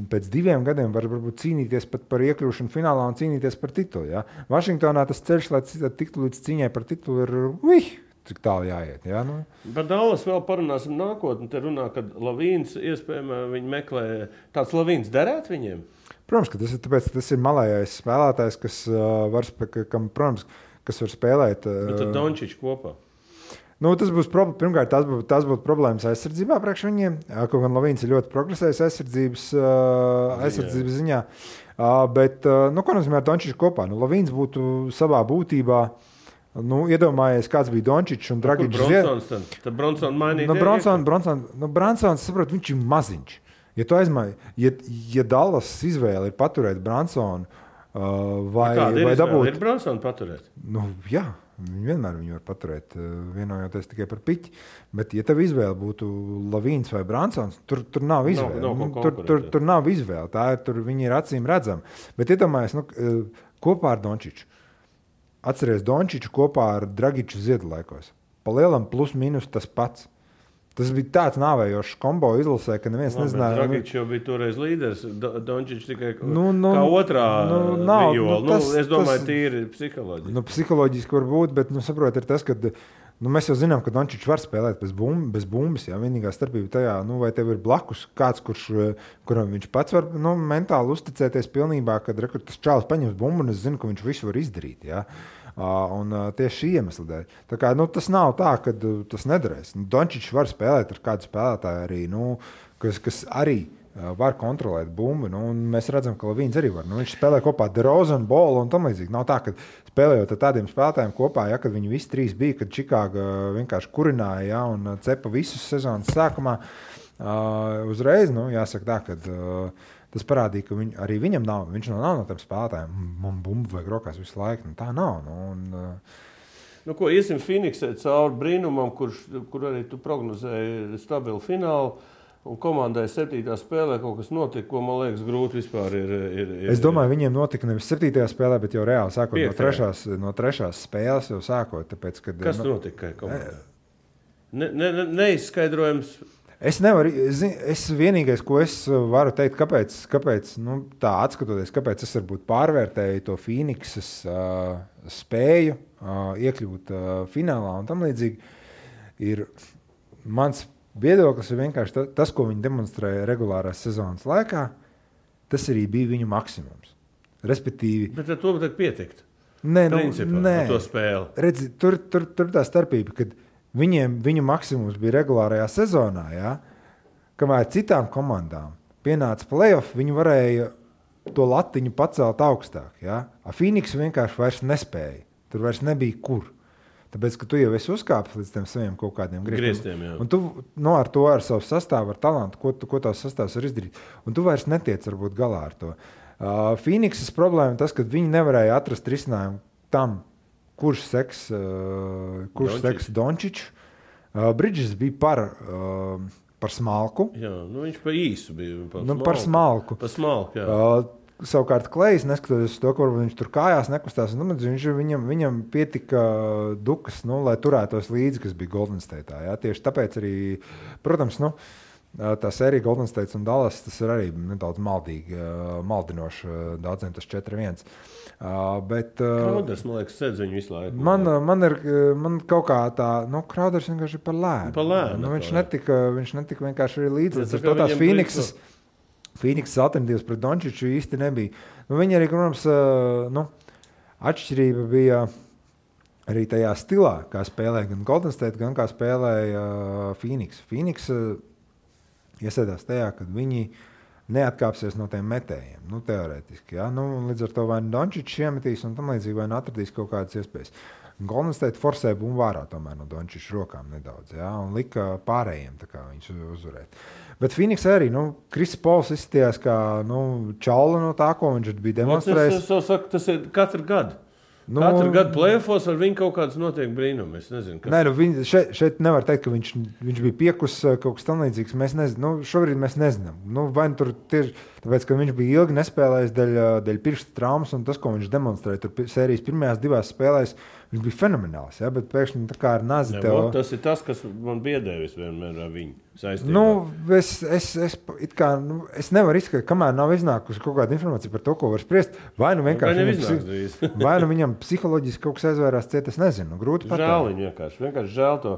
C: pēc 2 gadiem var varbūt cīnīties pat par iekļūšanu finālā un cīnīties par titulu. Ja? Vašingtonā tas ceļš, lai tiktu līdz cīņai par titulu, ir cik tālu jāiet. Ja?
B: Par Dallas vēl parunāsim nākotni. Te runā, kad Lavīns iespējamā viņi meklē. Tāds Lavīns derētu viņiem?
C: Protams, ka tas ir tāpēc, ka tas ir malējais spēlētājs, kas var spēlēt.
B: Bet tad Dončičs kopā.
C: Tas būs pirmkārt, tās būtu problēmas aizsardzībā priekš viņiem. Kaut gan Lavīns ir ļoti progresējis aizsardzības ziņā. Bet, ko nozīmē Dončičs kopā? Lavīns būtu savā būtībā, iedomājies, kāds bija Dončičs un Dragičs.
B: Tad Bronsons mainīja.
C: Bronsons, saprot, viņš ir maziņš. Ja Dallas izvēle ir paturēt Bronsonu vai dabūt...
B: Ir Bronsonu paturēt?
C: Jā. Viņi vienmēr viņu var paturēt, vienojoties tikai par piķi. Bet, ja tev izvēle būtu Lavīns vai Bransons, tur nav izvēle. Tur nav izvēle. Viņi ir acīm redzami. Bet iedomājies, kopā ar Dončiču. Atceries Dončiču kopā ar Dragiču Ziedlaikos. Pa lielam plus mīnus tas pats. Tas bija tāds nāvējošs kombo izlasē, ka neviens nezināja.
B: Dragičs jau bija toreiz līderis, Dončičs tikai kā otrā viola. Es domāju, tīri psiholoģiski.
C: Psiholoģiski var būt, bet saprot, ir tas, ka mēs jau zinām, ka Dončičs var spēlēt bez bumbas. Jā. Vienīgā starpība tajā, vai tev ir blakus kāds, kuram viņš pats var mentāli uzticēties pilnībā, kad tas čālis paņems bumbu un es zinu, ka viņš visu var izdarīt. Jā. Un tieši šī iemesla dēļ. Tā kā, tas nav tā, ka tas nedarēs. Dončičs var spēlēt ar kādu spēlētāju arī, kas arī var kontrolēt bumbu. Mēs redzam, ka Lavīns arī var. Viņš spēlē kopā ar DeRozanu, Bolu un tam līdzīgi. Nav tā, ka spēlējot ar tādiem spēlētājiem kopā, ja, kad viņi visi 3 bija, kad Čikāga vienkārši kurināja, ja, un cepa visus sezonas sākumā. Uzreiz, jāsaka tā, ka tas parādīja, ka arī viņam nav. Viņš nav no tiem spēlētājiem. Man bumbu vajag rokās visu laiku. Tā nav.
B: Iesim Phoenixē cauri brīnumam, kur arī tu prognozēji stabilu finālu. Un komandai 7. spēlē kaut kas notika, ko, man liekas, grūti vispār ir.
C: Es domāju, viņiem notika nevis 7. spēlē, bet jau reāli sākot no 3. spēles jau sākot. Tāpēc, kad,
B: kas notika komandai? Neizskaidrojams.
C: Es vienīgais, ko es varu teikt, kāpēc tā atskatoties, kāpēc es varbūt pārvērtēju to Phoenixas spēju iekļūt finālā un tam līdzīgi, ir mans viedoklis ir vienkārši tas, ko viņi demonstrēja regulārās sezonas laikā, tas arī bija viņu maksimums. Respektīvi...
B: Bet ar to tad pietikt?
C: Nē,
B: to spēli.
C: Redzi, tur tā starpība, kad viņu maksimums bija regulārajā sezonā, ja? Kamēr citām komandām pienāca playoff, viņi varēja to latiņu pacelt augstāk. Ja? A Phoenix vienkārši vairs nespēja. Tur vairs nebija kur. Tāpēc, ka tu jau esi uzkāpis līdz tiem saviem kaut kādiem
B: grieztiem.
C: Un tu ar savu sastāvu, ar talantu, ko tās sastāvs var izdarīt. Un tu vairs netiec varbūt galā ar to. Phoenixas problēma tas, ka viņi nevarēja atrast risinājumu tam, kurš seks Dončiču. Bridges bija par smalku.
B: Jā, viņš pa īsu bija.
C: Par smalku.
B: Par smalku, jā.
C: Savukārt Klejs, neskatoties to, ka viņš tur kājās nekustās, viņam pietika dukas, lai turētos līdzi, kas bija Golden State'ā. Ja? Tieši tāpēc arī, protams, tā sērija Golden State un Dallas, tas ir arī nedaudz maldinoši, daudziem tas 4-1.
B: Krauders, man liekas, sēdz viņu visu laiku.
C: Man kaut kā tā, Krauders vienkārši ir par lēnu. Viņš netika vienkārši arī līdzi. To tās Phoenixas alternatīvas pret Dončiču īsti nebija. Viņi arī, protams, atšķirība bija arī tajā stilā, kā spēlēja gan Golden State, gan kā spēlēja Phoenix. Phoenix iesēdās tajā, kad viņi neatkāpsies no tiem metējiem, teorētiski. Ja? Līdz ar to vai Dončičs iemetīs un tam līdzīgi vai atradīs kaut kādas iespējas. Golden State forsēja bumbu vārā tomēr no Dončiča rokām nedaudz, ja? Un lika pārējiem tā kā viņus uzvarēt. Bet Phoenix arī, Kris Pols izskatījās kā čaula no tā, ko viņš bija demonstrējis.
B: Tas ir katru gadu. Katru gadu play-offos ar viņu kaut kāds notiek brīnumi. Es nezinu, kas...
C: Nē, šeit nevar teikt, ka viņš bija piekus kaut kas tam līdzīgs. Mēs nezinām. Šobrīd mēs nezinām. Vai tur tieši tāpēc, ka viņš bija ilgi nespēlējis dēļ pirksta traumas un tas, ko viņš demonstrēja tur sērijas pirmajās 2 spēlēs, viņš bija fenomenāls, ja? Bet pēkšņi tā kā ar nazi tev...
B: Tas ir tas, kas man biedēvis vienmēr ar viņu saistībā.
C: Es nevaru izskatīt, kamēr nav iznākusi kaut kāda informācija par to, ko var spriest. Vai viņam psiholoģiski kaut kas aizvērās ciet, es nezinu. Grūti pateikt.
B: Žēl viņu vienkārši žēl to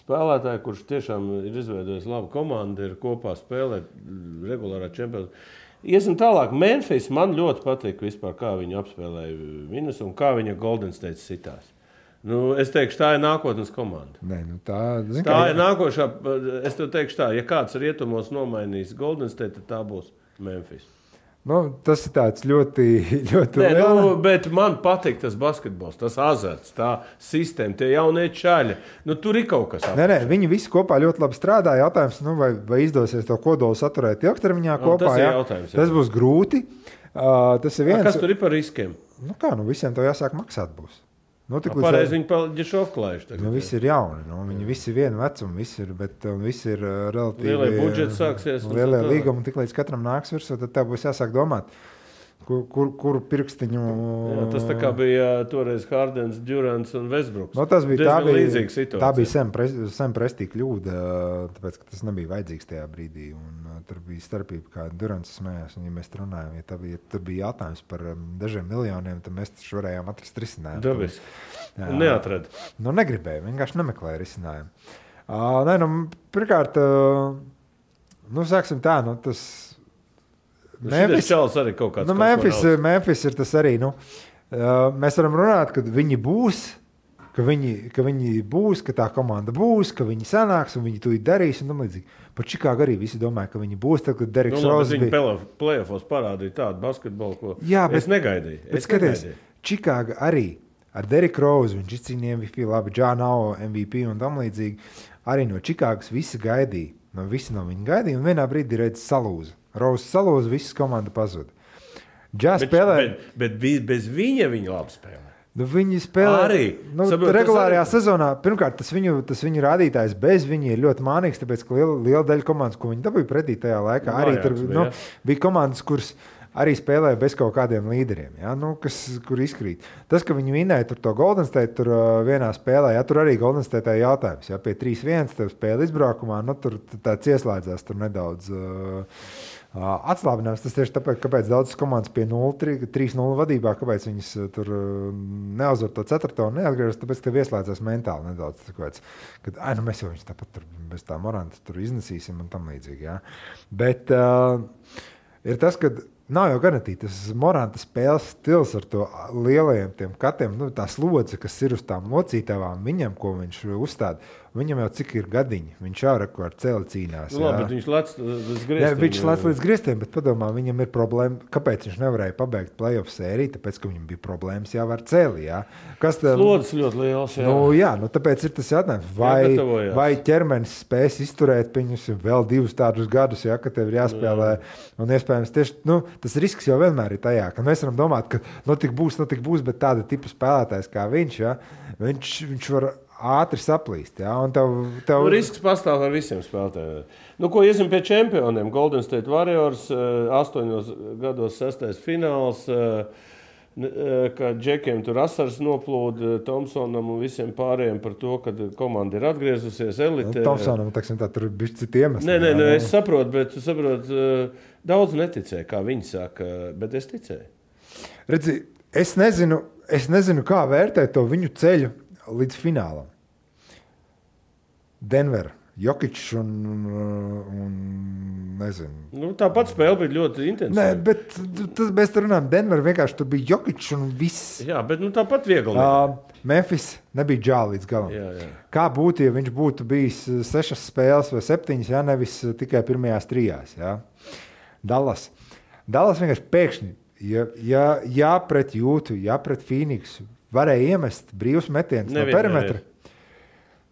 B: spēlētāju, kurš tiešām ir izveidojis labu komandu, ir kopā spēlēt regulārā čempionātā. Iesim tālāk. Memphis man ļoti patīk vispār, kā viņi apspēlēja Minus un kā viņa Golden State sitās. Es teikšu, tā ir nākotnes komanda.
C: Nē,
B: tā ir nākošā. Es tev teikšu tā, ja kāds rietumos nomainīs Golden State, tad tā būs Memphis.
C: Tas ir tāds ļoti liels.
B: Bet man patīk tas basketbols, tas azarts, tā sistēma, tie jaunie čaļi. Tur ir kaut kas.
C: Nē, viņi visi kopā ļoti labi strādā. Jautājums, vai izdosies to kodolu saturēt ilgtermiņā kopā.
B: Tas ir jautājums.
C: Tas būs grūti. Tas ir viens.
B: Kas tur ir par riskiem?
C: Visiem to jāsāk maksāt būs.
B: Pareizi viņi paģešovklājuši.
C: Visi ir jauni, viņi visi ir vienu vecumu, visi ir relatīvi...
B: Lielie budžeti sāksies.
C: Lielie līgumi, tik līdz katram nāks virsū, tad tev būs jāsāk domāt, kuru pirkstiņu...
B: Jā, tas tā kā bija toreiz Hardens, Durants un Westbrooks.
C: Tā bija Sam Prestī kļūda, tāpēc, ka tas nebija vajadzīgs tajā brīdī. Tur bija starpība, kā Durants smējās. Un, ja mēs runājam, ja tur bija jautājums par dažiem miljoniem, tad mēs taču varējām atrast risinājumu.
B: Dabiski. Neatrada.
C: Negribēja, vienkārši nemeklēja risinājumu. Pirmkārt, sāksim tā, tas... Memphis ir tas arī. Mēs varam runāt, ka viņi būs, ka tā komanda būs, ka viņi sanāks un viņi to darīs un tam līdzīgi. Par Čikāgu arī visi domāja, ka viņi būs, tad, kad Deriks Rose bija...
B: Viņi play-offos parādīja tādu basketbolu, ko es negaidīju.
C: Bet skaties, Čikāga arī ar Deriku Rose, viņš izcīnīja MVP, labi, Džānao MVP un tam līdzīgi. Arī no Čikāgas visi gaidīja. Visi no viņa gaidīja un vienā brīdī redz salūza. Rose salūza, visas komanda pazuda.
B: Bet bez viņa labi spēlē.
C: Viņi spēlē
B: arī.
C: Regulārajā sezonā. Pirmkārt, tas viņu rādītājs bez viņa ir ļoti mānīgs, tāpēc, ka liela daļa komandas, ko viņi dabūja pretī tajā laikā, arī tur bija komandas, kuras arī spēlēja bez kaut kādiem līderiem, ja? Nu, kur izkrīt. Tas, ka viņi vinēja tur to Golden State tur vienā spēlē, ja? Tur arī Golden State jautājums. Ja? Pie 3-1 tev spēle izbraukumā, nu, tur tāds ieslēdzās tur nedaudz atslābinājums. Tas tieši tāpēc, kāpēc daudzas komandas pie 3-0 vadībā, kāpēc viņas tur neuzvar to 4. un neatgriežas, tāpēc tev ieslēdzās mentāli nedaudz. Kāpēc, kad, nu, mēs jau viņus tāpat tur bez tā Moranta tur iznesīsim un tam līdzīgi. Ja? Bet ir tas, ka nav jau garantīti tas Moranta spēles stils ar to lielajiem tiem katiem, nu, tā slodze, kas ir uz tām locītavām viņam, ko viņš uzstāda. Viņam jau cik ir gadiņi, viņš jau ar celi cīnās.
B: Nu, labi, bet viņš lec līdz griestiem.
C: Jā, viņš lec līdz griestiem, bet padomā, viņam ir problēma, kāpēc viņš nevarēja pabeigt playoff sēriju, tāpēc, ka viņam bija problēmas jau ar celi, jā.
B: Slodzes ļoti liels, jā.
C: Nu, jā, nu tāpēc ir tas jautājums, vai ķermenis spēs izturēt viņus vēl 2 tādus gadus, jā, ka tev ir jāspēlē, un iespējams tieši, nu, tas risks jau vienmēr ir tajā, ka mēs varam domāt, ka nu tik būs, bet tāda tipa spēlētājs kā viņš, jā, viņš var ātri saplīst. Ja? Tev...
B: Nu, risks pastāv ar visiem spēlētājiem. Nu, ko iesim pie čempioniem? Golden State Warriors 8 gados 6. fināls, ka Džekiem tur asars noplūda Thompsonam un visiem pārējiem par to, ka komanda ir atgriezusies elitē.
C: Thompsonam, tā, tur ir bišķi citi iemesli.
B: Nē, es saprotu, bet daudz neticēja, kā viņi saka, bet es ticēju.
C: Redzi, es nezinu, kā vērtēt to viņu ceļu līdz finālam. Denver, Jokičs un nezinu.
B: Nu, tāpat spēle bija ļoti intensīva.
C: Nē, bet mēs runājam, Denver vienkārši tur bija Jokičs un viss.
B: Jā, bet tāpat viegli.
C: Memphis nebija džāli līdz galam.
B: Jā.
C: Kā būtu, ja viņš būtu bijis 6 spēles vai 7, ja nevis tikai pirmajās 3. Ja? Dallas vienkārši pēkšņi, ja pret Jūtu, ja pret Phoenixu, varēja iemest brīvus metienus no perimetra.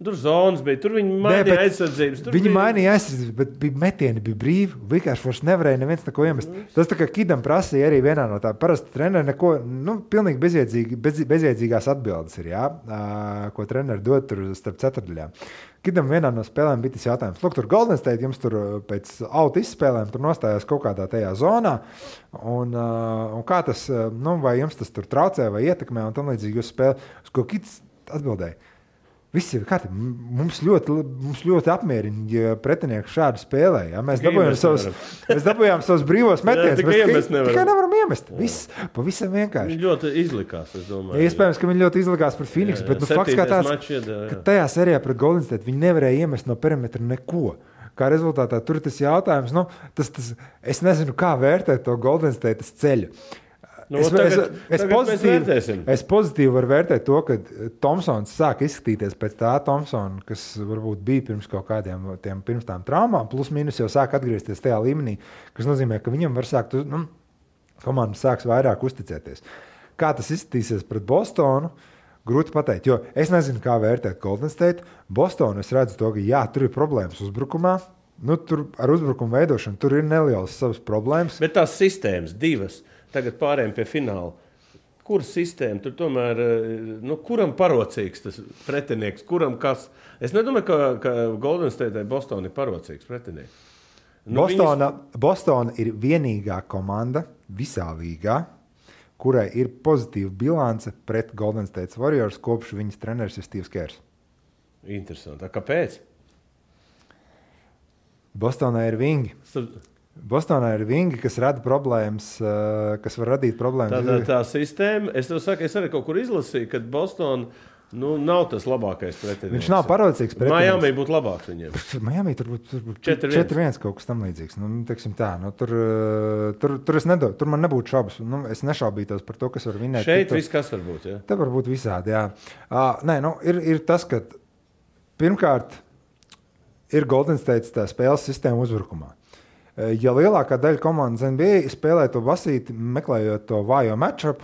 B: Tur zonas bija, tur viņi mainīja aizsardzības.
C: Viņi mainīja aizsardzības, bet metieni bija brīvi, vienkārši vairs nevarēja neviens neko iemest. Tas tā kā Kidam prasīja arī vienā no tā. Parasti treneri neko, pilnīgi bezjēdzīgās atbildes ir, jā, ko treneri dod tur starp ceturtdaļām. Kidam vienā no spēlēm bija tas jautājums. Lūk, tur Golden State jums tur pēc auta izspēlēm tur nostājās kaut kādā tajā zonā, un kā tas, vai jums tas tur traucē vai ietekmē, un tam līdzīgi jūs spēlē, uz ko Kids atbildēja. Viss ir kārtībā. Mums ļoti apmierina, ja pretinieki šādi spēlē. Ja? Mēs dabūjām savus brīvos metienus, bet tikai nevaram iemest. Viss pavisam vienkārši.
B: Viņi ļoti izlikās, es domāju.
C: Iespējams, ka viņi ļoti izlikās pret Phoenixu, bet fakts kā tāds, ka tajā serijā pret Golden State viņi nevarēja iemest no perimetra neko. Kā rezultātā tur ir tas jautājums, es nezinu, kā vērtēt to Golden State ceļu. Es pozitīvi varu vērtēt to, ka Thompsons sāk izskatīties pēc tā Thompsona, kas varbūt bija pirms kaut kādiem pirms tām traumām, plus mīnus jau sāk atgriezties tajā līmenī, kas nozīmē, ka viņam var sākt, komanda sāks vairāk uzticēties. Kā tas izskatīsies pret Bostonu? Grūti pateikt, jo es nezinu, kā vērtēt Golden State. Bostonu es redzu to, ka jā, tur ir problēmas uzbrukumā. Tur ar uzbrukumu veidošanu tur ir nelielas savas problēmas.
B: Bet tās sistēmas divas. Tagad pārējiem pie fināla. Kur sistēma? Tur tomēr, kuram parocīgs tas pretinieks? Kuram kas? Es nedomāju, ka Golden State vai Boston ir parocīgs pretinieks.
C: Boston ir vienīgā komanda visā līgā, kurai ir pozitīva bilance pret Golden State Warriors, kopš viņas treneris ir Steve's Kers.
B: Interesanti. Kāpēc?
C: Bostonā ir vingi. Bostonā ir vingi, kas rada problēmas, kas var radīt problēmas.
B: Tā sistēma, es tev saku, es arī kaut kur izlasīju, ka Boston nav tas labākais pretinieks.
C: Viņš nav parocīgs pretinieks.
B: Miami būtu labāks viņiem.
C: Miami tur būtu 4-1 kaut kas tam līdzīgs. Tur man nebūtu šaubas. Es nešaubītos par to, kas var vinēt.
B: Šeit viss kas var būt, jā?
C: Te var būt visādi, jā. Ir tas, ka pirmkārt ir Golden State tā spēles sistēma uzbrukumā. Ja lielākā daļa komandas NBA spēlē to basīti, meklējot to vājo matchup,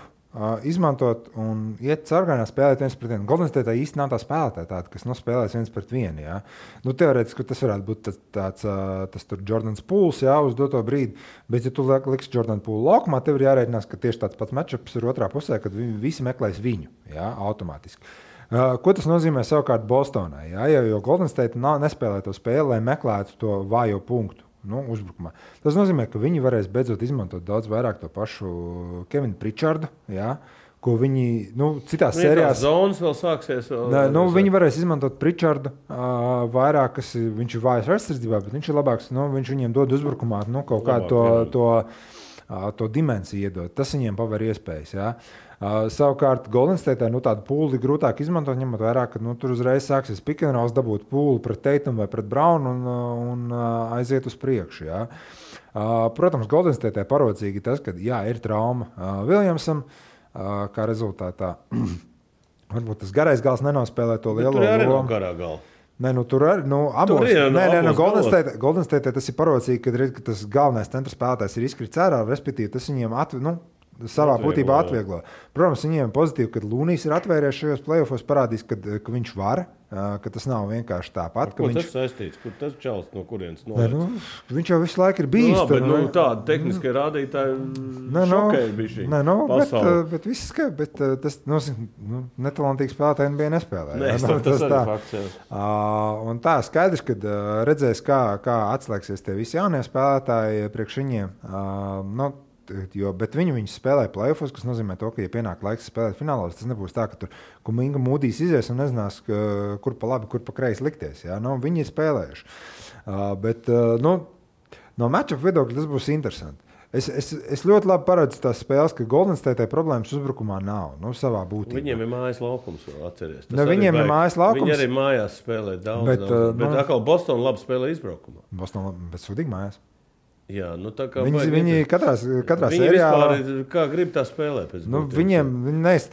C: izmantot un iet sargainā spēlēt viens pret vienu. Golden State īsti nav tā spēlētāja tāda, kas spēlēs viens pret vienu. Ja? Teorētiski tas varētu būt tas tur Jordans Pools, ja, uz doto brīdi, bet ja tu liksi Jordan Poolu laukumā, tev ir jārēķinās, ka tieši tāds pats matchups ir otrā pusē, kad visi meklēs viņu, ja, automātiski. Ko tas nozīmē savukārt Bostonai? Ja? Jo Golden State nespēlē to spēli, lai meklētu to vājo punktu. uzbrukumā. Tas nozīmē, ka viņi varēs beidzot izmantot daudz vairāk to pašu Kevinu Pričardu, jā, ko viņi citās sērijās...
B: Zonas vēl sāksies.
C: Viņi varēs izmantot Pričardu vairāk, kas viņš ir vājs aizsardzībā, bet viņš ir labāks, viņš viņiem dod uzbrukumā kaut kādu to dimensiju iedod. Tas viņiem paver iespējas, jā. Savukārt Golden State tādu pūli grūtāk izmantot, ņemot vērā, ka tur uzreiz sāksies pick and rolls, dabūt pūli pret Tatum vai pret Brownu un aiziet uz priekšu. Jā. Protams, Golden State parocīgi tas, ka ir trauma Williamsam, kā rezultātā varbūt tas garais gals nenospēlē to lielo lomu.
B: Tur arī nav garā gala.
C: Tur arī abos. Golden State tas ir parocīgi, kad tas galvenais centra spēlētājs ir izkrits ārā, respektīvi tas viņiem savā būtībā atvieglo. Protams, viņiem pozitīvi, kad Lūnijs ir atvērties šajos playoffos, parādīs, ka viņš var, ka tas nav vienkārši tāpat.
B: Ko tas saistīts? Kur tas čals no kurienes
C: nolaists? Viņš jau visu laiku ir bijis.
B: Tāda tehniskie rādītāji šokēja bišķi pasauli.
C: Bet viss skaidrs, bet tas netalantīgs spēlētāji NBA nespēlē.
B: Tas arī fakts.
C: Un tā skaidrs, kad redzēs, kā atslēgsies tie visi jaunie spēlētāji priekš viņiem. Bet viņi spēlē playoffos, kas nozīmē to, ka, ja pienāk laiks spēlēt finālos, tas nebūs tā, ka tur Kuminga Mūdīs izies un nezinās, kur pa labi, kur pa kreisi likties. Ja? Viņi ir spēlējuši. Bet no matchup viedokļa tas būs interesanti. Es ļoti labi paredzu tās spēles, ka Golden State problēmas uzbrukumā nav, savā būtībā.
B: Viņiem ir mājas laukums, atceries.
C: Viņiem ir mājas laukums.
B: Viņi arī mājās spēlē daudz. Bet atkal Boston labi spēlē izbraukumā.
C: Boston labi, bet sudīgi mājās.
B: Jā, tā kā
C: viņi katrā
B: viņi
C: sērijā...
B: Vispār, kā grib tā spēlēt?
C: Viņi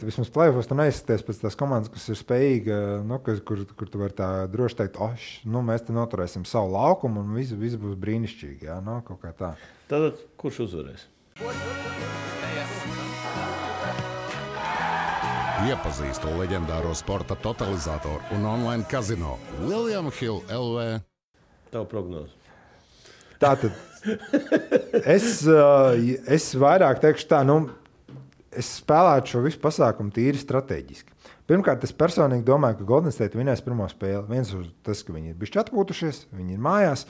C: vismaz playoffos tu neizsties pēc tās komandas, kas ir spējīga, kur tu vari tā droši teikt, mēs te noturēsim savu laukumu un viss būs brīnišķīgi, jā, kaut kā tā.
B: Tātad, kurš uzvarēs?
A: Iepazīstu leģendāro sporta totalizatoru un online kazino William Hill LV.
B: Tavu prognozi.
C: Tātad, es vairāk teikšu tā, es spēlētu šo visu pasākumu tīri strateģiski. Pirmkārt, es personīgi domāju, ka Golden State vinēs pirmo spēli. Viens uz tas, ka viņi ir bišķi atpūtušies, viņi ir mājās.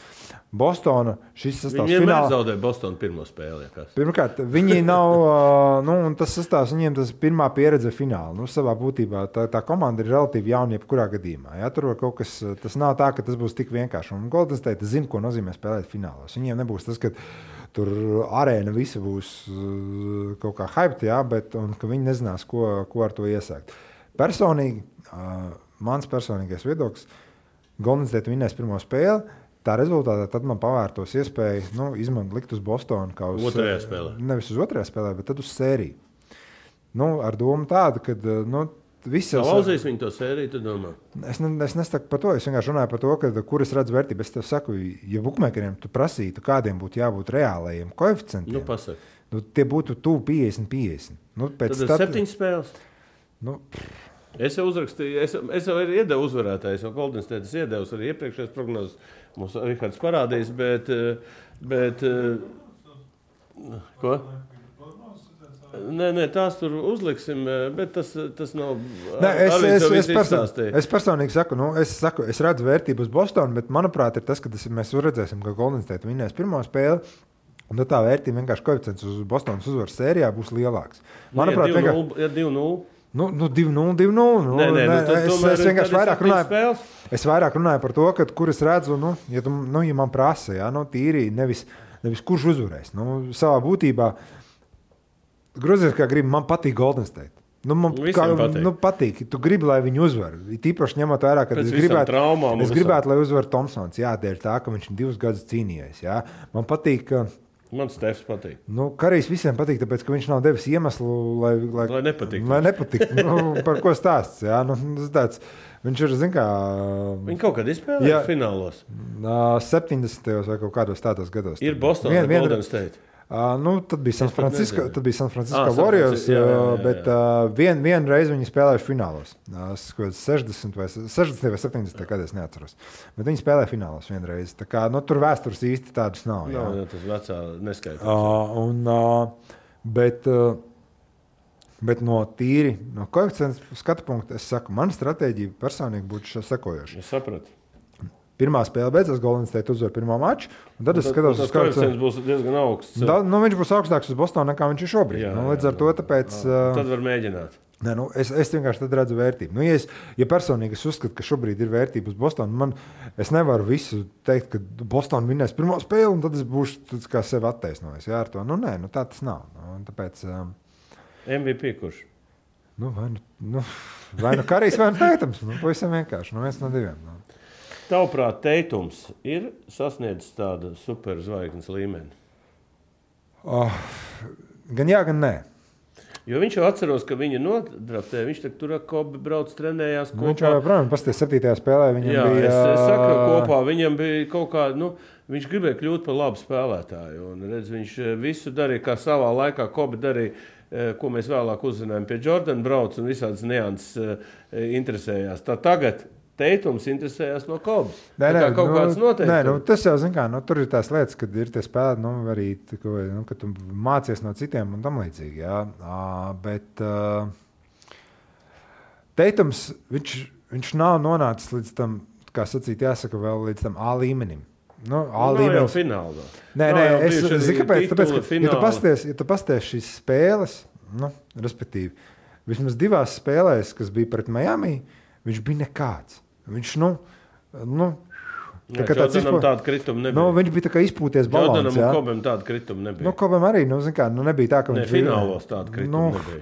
C: Bostona šis sastāvs
B: finālā. Viņi vienmēr zaudēja Bostonu pirmo spēli.
C: Pirmkārt, viņi nav, un tas sastāvs viņiem tas pirmā pieredze fināla. Savā būtībā tā komanda ir relatīvi jauna jebkurā gadījumā. Ja? Tur var kaut kas, tas nav tā, ka tas būs tik vienkārši. Un Golden State zina, ko nozīmē spēlēt finālos. Viņiem nebūs tas, ka tur arēna visa būs kaut kā hyped, ja? Un ka viņi nezinās, ko ar to iesākt. Personīgi, mans personīgais viedoklis, Golden State vinēs pirmo spēli, tā rezultātā tad man pavērtos iespēju likt uz Bostonu kā uz
B: otrajā spēlē.
C: Nevis uz otrajā spēlē, bet tad uz sēriju. Ar domu tādu, ka visi...
B: Lauzīs viņi to sēriju, tu domā?
C: Es nesaku par to, es vienkārši runāju par to, kur es redzu vērtību. Es tev saku, ja bukmekeriem tu prasītu, kādiem būtu jābūt reālajiem koeficientiem,
B: pasaka.
C: Tie būtu tuvu 50-50.
B: Tad 7 spēles? Es jau uzrakstīju, es jau iedevu uzvarētājs, jo Golden State es iedevu arī iepriekšējās prognozes. Mums Rihards parādīs, bet ko? Nē, tās tur uzliksim, bet tas nav...
C: Es personīgi saku, es redzu vērtību uz Bostonu, bet manuprāt ir tas, ka mēs redzēsim, ka Golden State vinēs pirmo spēli. Un tā vērtība vienkārši koeficients uz Bostonas uzvaras sērijā būs lielāks.
B: Manuprāt, ja 2-0.
C: 2-0. Es vienkārši vairāk runāju par to, kur es redzu, ja man prasa, ja, tīri, nevis kurš uzvarēs. Savā būtībā, grozies kā gribi, man patīk Golden State. Patīk. Tu gribi, lai viņi uzvar. Tīpaši ņemot vērā, ka es gribētu, lai uzvar Thompsons. Jā, dēļ tā, ka viņš 2 gadus cīnījies. Jā. Man patīk, ka...
B: Man Stefs patīk.
C: Karijs visiem patīk, tāpēc, ka viņš nav devis iemeslu, lai
B: nepatīk.
C: Par ko stāsts, jā? Tāds, viņš ir, zin kā...
B: Viņi kaut kad izspēlēja finālos?
C: 70. vai kaut kādos tādos gados.
B: Ir Boston vai Golden State?
C: Tad bija San Francisco Warriors, bet vienu reizi viņi spēlējuši finālos. 60 vai 70 gados, neatceros. Bet viņi spēlēja finālos vienu reizi. Tā kā, tur vēstures īsti tādas nav. Jā,
B: tas vecā neskaitās.
C: Bet no koeficients skatu punkta, es saku, mana stratēģija personīgi būtu sekojoša.
B: Es sapratu.
C: pirmā spēle beidzās, Golden State uzvar pirmo maču. Tad es skatos,
B: tas koeficients būs diezgan augsts.
C: Viņš būs augstāks uz Bostonu, nekā viņš ir šobrīd. Līdz ar to tāpēc...
B: Tad var mēģināt.
C: Nē, es vienkārši tad redzu vērtību. Ja personīgi es uzskatu, ka šobrīd ir vērtība uz Bostonu, es nevaru visu teikt, ka Bostonu vinnēs pirmo spēli, un tad es būšu kā sevi attaisnojis. Jā, ar to. Tā tas nav. Tāpēc...
B: MVP kurš?
C: Vai Karijs, vai Teitums. Pavisam vienkārši. Viens no diviem.
B: Tavuprāt, Teitums ir sasniedzis tādu superzvaigznes līmeni?
C: Gan jā, gan nē.
B: Jo viņš jau atceros, ka viņa nodraftē, viņš tur ar Kobi brauc, trenējās kopā.
C: Viņš jau, protams, pasties 7. spēlē, viņam bija...
B: Es saku kopā, viņam bija kaut kā, viņš gribēja kļūt par labu spēlētāju. Un, redz, viņš visu darīja, kā savā laikā Kobi darīja, ko mēs vēlāk uzzinājām pie Jordan brauc un visādas nianses interesējās. Tā tagad Teitums interesējās no Kobas. Kaut kāds noteikti.
C: Tas jau, tur ir tās lietas, kad ir tie spēlēti, arī, kad tu mācies no citiem un tam līdzīgi, jā. Bet Teitums, viņš nav nonācis līdz tam, kā sacīt, jāsaka vēl līdz tam A līmenim.
B: Nav jau finālā.
C: Nē, es zinu, kāpēc, ja tu pasties šīs spēles, respektīvi, vismaz 2 spēlēs, kas bija pret Miami, viņš bija nekāds. Viņš,
B: tāda krituma nebija.
C: Viņš bija tā kā izpūties balons.
B: Jordanam un Kobam tāda krituma nebija.
C: Kobam arī, nebija tā, ka viņš
B: bija. Finālos tāda krituma nebija.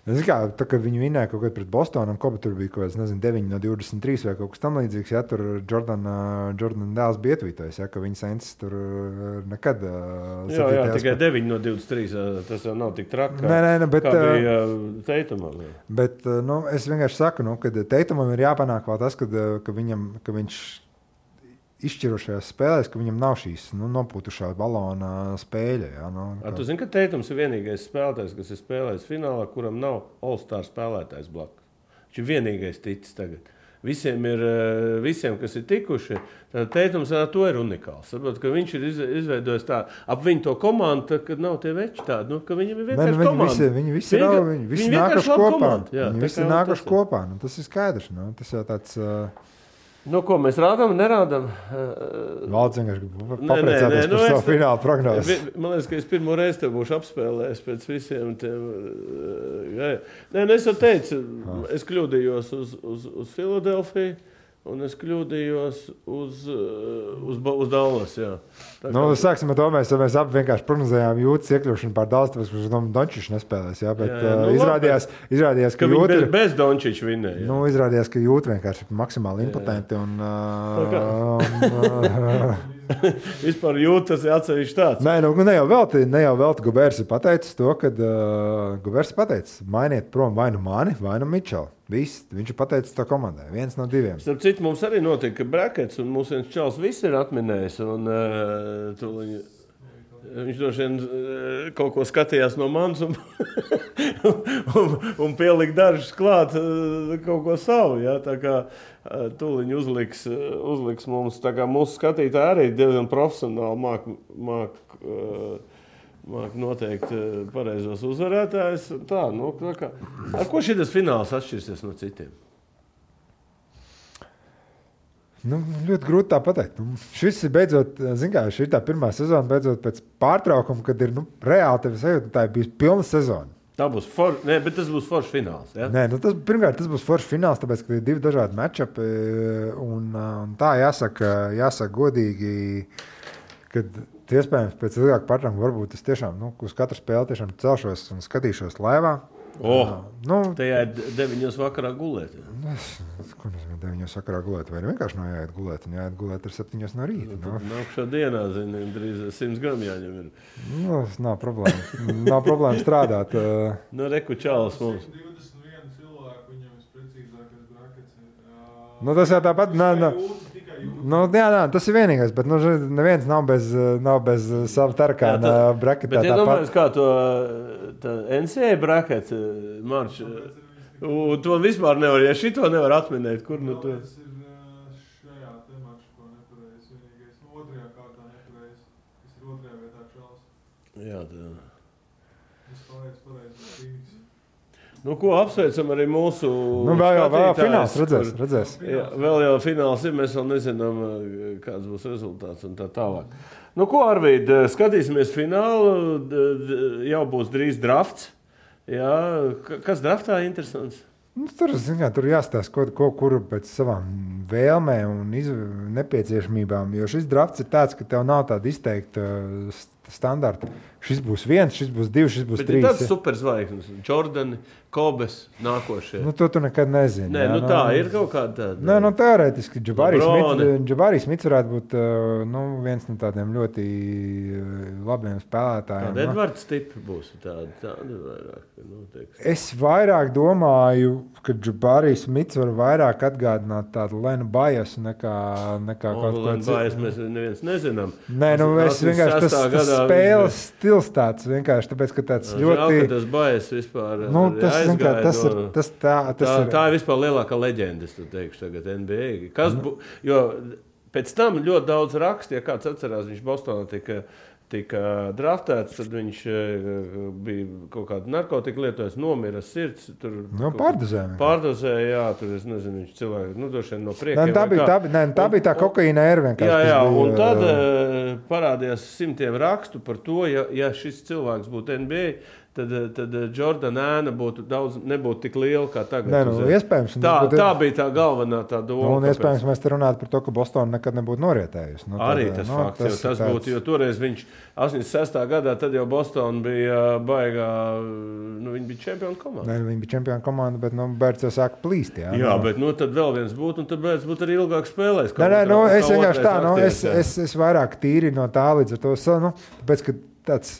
C: Tā kā viņi vinnēja kaut kad pret Bostonu, un Koba tur bija kaut kāds, 9 no 23 vai kaut kas tam līdzīgs, ja tur Jordan dēls bija ietvītojis, ja, ka viņa sensis tur nekad...
B: Jā, tikai 9 no 23, tas jau nav tik traki,
C: bet,
B: kā bija Teitumam.
C: Bet, es vienkārši saku, ka Teitumam ir jāpanāk vēl tas, ka viņš izšķirošajās spēlēs, ka viņam nav šīs nopūtušā balona spēļa. Ja,
B: Tu zini, ka Teitums ir vienīgais spēlētājs, kas ir spēlējis finālā, kuram nav All-Star spēlētājs blakus. Viņš ir vienīgais ticis tagad. Visiem, kas ir tikuši, tad Teitums ar to ir unikāls. Saprot, ka viņš ir izveidojis tā, ap viņu to komandu, kad nav tie veči tādi, ka viņam ir vienkārši komanda.
C: Viņi visi nākuši kopā. Viņi visi nākuši kopā. Tas ir skaidrs. Tas jau tāds...
B: Ko mēs rādām, nerādām?
C: Valds vienkārši papriecāties par savu finālu prognozi.
B: Man liekas, ka es pirmo reizi tev būšu apspēlējis pēc visiem tiem. Es jau teicu, es kļūdījos uz Filadelfiju, un es kļūdījos uz Dallas, jā.
C: Sāksim ar to, mēs abi vienkārši prognozējām Jūtas iekļūšanu pār Dallas, tāpēc, ka Dončičs nespēlēs, jā, bet izrādījās, ka
B: Jūta... Bez Dončiča vinnēja.
C: Izrādījās, ka Jūta vienkārši ir maksimāli impotenti un...
B: Vispār Jūtas ir atsevišķi tāds.
C: Ne jau velti Gobers ir pateicis to, kad Gobers ir pateicis, mainiet prom vai nu mani, vai nu Mičelu. Viņš ir pateicis to komandai. 1 no 2.
B: Starp citu, mums arī notika brackets, un mūsu viens čals viss ir atminējis. Un, viņš droši vien kaut ko skatījās no manis un pielika dažus klāt kaut ko savu. Ja? Tā kā tūliņ uzliks mums, tā kā mūsu skatītāji arī diezgan profesionāli māk noteikt pareizos uzvarētājus. Ar ko šitas fināls atšķirsies no citiem?
C: Ļoti grūti tā pateikt. Šis ir beidzot, šī ir tā pirmā sezona, beidzot pēc pārtraukuma, kad ir reāli tevi sajūta, tā ir bijusi pilna sezona.
B: Bet tas būs foršs fināls. Ja?
C: Pirmkārt, tas būs foršs fināls, tāpēc, ka ir 2 dažādi matchupi, un tā jāsaka godīgi, kad iespējams pēc ilgāka pārtraukuma varbūt es tiešām uz katru spēli tiešām celšos un skatīšos laivā.
B: Tajā ir 9 vakarā gulēt.
C: Ko nozīmē 9 vakarā gulēt? Vai vienkārši nav jāiet gulēt? Jāiet gulēt ar 7 no rīta.
B: Nākšā dienā, drīz 100 gramu jāņem ir.
C: Nav problēma. Nav problēma strādāt.
B: Reku čāls mums.
D: 21 cilvēku, viņam visprecīzākais brackets.
C: Tas jau tāpat... tas ir vienīgais, bet neviens nav bez sava tarakāna bracketā.
B: Bet iedomājies, kā to NCAA bracket marš. To vispār nevar, ja šito nevar atminēt, kur to...
D: Tas ir šajā te maršu, ko nepareiz vienīgais. 2. kārtā nepareiz. Tas ir 2. vietā čals.
B: Jā, tā.
D: Es palaicu pareizi.
B: Nu, ko apsveicam arī mūsu
C: vēl fināls redzēs.
B: Jā, vēl jau fināls ir, mēs vēl nezinām, kāds būs rezultāts un tā tālāk. Nu, ko, Arvīd, skatīsimies finālu, jau būs drīz drafts. Jā, kas draftā interesants?
C: Tur jāstāsta, kur pēc savām vēlmēm un nepieciešamībām, jo šis drafts ir tāds, ka tev nav tāda izteikta standarta. Šis būs 1, šis būs 2, šis būs 3.
B: Bet ir tāds superzvaigznes, Jordani, Kobes, nākošie.
C: Nu, to tu nekad nezini.
B: Nē, nu tā ir kaut kāda tāda.
C: Nē, teorētiski Džabari Smits varētu būt viens no tādiem ļoti labiem spēlētājiem.
B: Tāda Edvards tipi būs tāda vairāk.
C: Es vairāk domāju, ka Džabari Smits var vairāk atgādināt tādu Lenu Bajasu nekā kaut ko citu.
B: Bajas mēs neviens nezinām.
C: Nē, es vienkārši tas spēles stils tāds vienkārši, tāpēc, ka tāds ļoti...
B: Tas Bajas vispār
C: aizgāja.
B: Tā ir vispār lielākā leģenda, es teikšu tagad NBA. Jo pēc tam ļoti daudz raksta, ja kāds atcerās, viņš Bostonā tika draftēts, tad viņš bija kaut kādu narkotiku lietojis, nomira sirds. Pārdozēja, jā, tur es nezinu, viņš cilvēki, došien no priekiem.
C: Tā bija tā kokaīna ēra vienkārši.
B: Jā, un tad parādījās simtiem rakstu par to, ja šis cilvēks būtu NBA, tad Jordana ēna nebūtu tik liela kā tagad.
C: Iespējams.
B: Tā bija tā galvenā tā doma.
C: Un iespējams mēs te runātu par to, ka Bostona nekad nebūtu norietējusi.
B: Arī tas fakts, tas būtu, jo toreiz viņš 86. gadā, tad jau Bostona bija baigā, viņi bija čempionu komanda.
C: Nē, viņi bija čempionu komanda, bet Bērts jau sāka plīst.
B: Jā, bet tad vēl viens būtu, un tad Bērts būtu arī ilgāk spēlējis.
C: Es vienkārši tā, es vairāk tīri no tā līdz ar to, tāpēc, ka tāds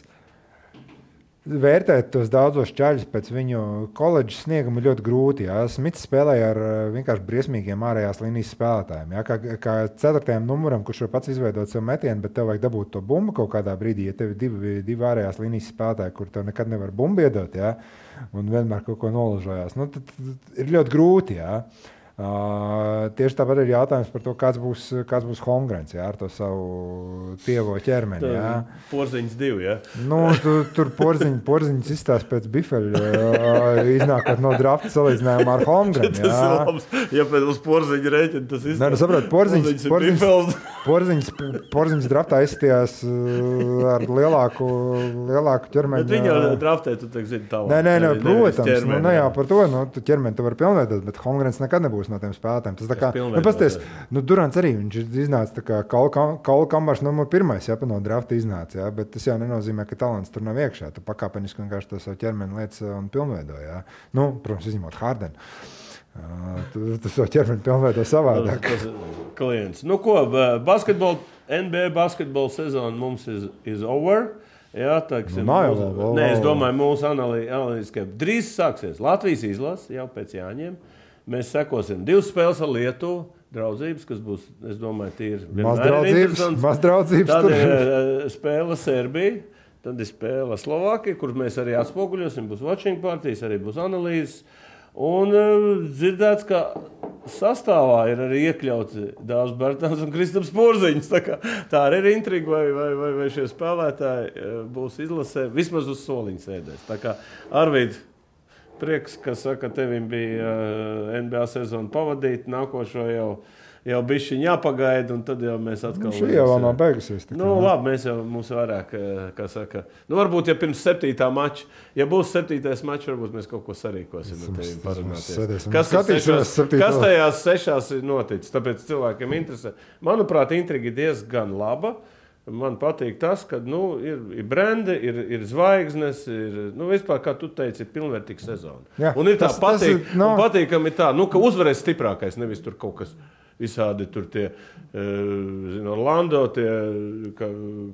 C: vērtēt tos daudzos čaļus pēc viņu koledžas snieguma ļoti grūti. Jā. Smits spēlēja ar vienkārši briesmīgiem ārējās līnijas spēlētājiem. Jā. Kā 4. numuram, kurš var pats izveidot savu metienu, bet tev vajag dabūt to bumbu kaut kādā brīdī, ja tev ir divi ārējās līnijas spēlētāji, kur tev nekad nevar bumbu iedot, jā, un vienmēr kaut ko nolažojās. Tad ir ļoti grūti. Jā. Tieši tāpat ir jautājums par to, kāds būs Holmgrens ar to savu tievo ķermeni.
B: Porziņš 2, jā?
C: Tur porziņš izstās pēc bifeļa, iznākot no drafta salīdzinājumā ar Holmgrenu.
B: Tas ir labs, ja pēc uz porziņa rēķina tas izstās.
C: Porziņš draftā izstījās ar lielāku ķermeni.
B: Bet viņa draftē, tu teik zini tālāk.
C: Nē, protams, ne jau par to, tu ķermeni tu var pilnveidot, bet Holmgrens nekad nebūs no tiem spēlētājiem. Tas tā kā, pasties, Durants arī, viņš iznāca tā kā Kaula Kambars numur 1, ja, no drafta iznāca, ja, bet tas jau nenozīmē, ka talants tur nav iekšā. Tu pakāpeniski vienkārši to savu ķermeni lietas un pilnveido, ja. Protams, izņemot Hardenu. Tu savu ķermeni pilnveido savādāk.
B: Klients. Ko, NBA basketbola sezona mums is over. Jā, tāksim, es domāju, mūsu analītikai drīz sāksies Latvijas izlase jau pēc Jāņiem. Mēs sekosim 2 spēles ar Lietuvu, draudzības, kas būs, es domāju, tīri
C: maz draudzības.
B: Tad ir spēle Serbija, tad ir spēle Slovākija, kur mēs arī atspoguļosim, būs watching partijas, arī būs analīzes. Un dzirdēts, ka sastāvā ir arī iekļauts Dāvs Bērtāns un Kristaps Porziņš. Tā arī ir intriga, vai šie spēlētāji būs izlasē, vismaz uz soliņa sēdēs. Tā kā Arvīd, prieks, ka saka, tevim bija NBA sezonu pavadīt, nākošo jau bišķiņ jāpagaida, un tad jau mēs atkal...
C: Šī jau nav beigusies.
B: Labi, mums vairāk, kā saka... Varbūt, ja pirms 7. mača, ja būs 7. mačs, varbūt mēs kaut ko sarīkosim ar tevim parunāties. Kas tajās 6 ir noticis? Tāpēc cilvēkiem interesē. Manuprāt, intriga ir diezgan laba. Man patīk tas, ka ir brendi, ir zvaigznes, vispār, kā tu teici, ir pilnvērtīga sezona.
C: Jā,
B: un ir tā patīkami tā, ka uzvarēs stiprākais, nevis tur kaut kas visādi tur tie, Orlando,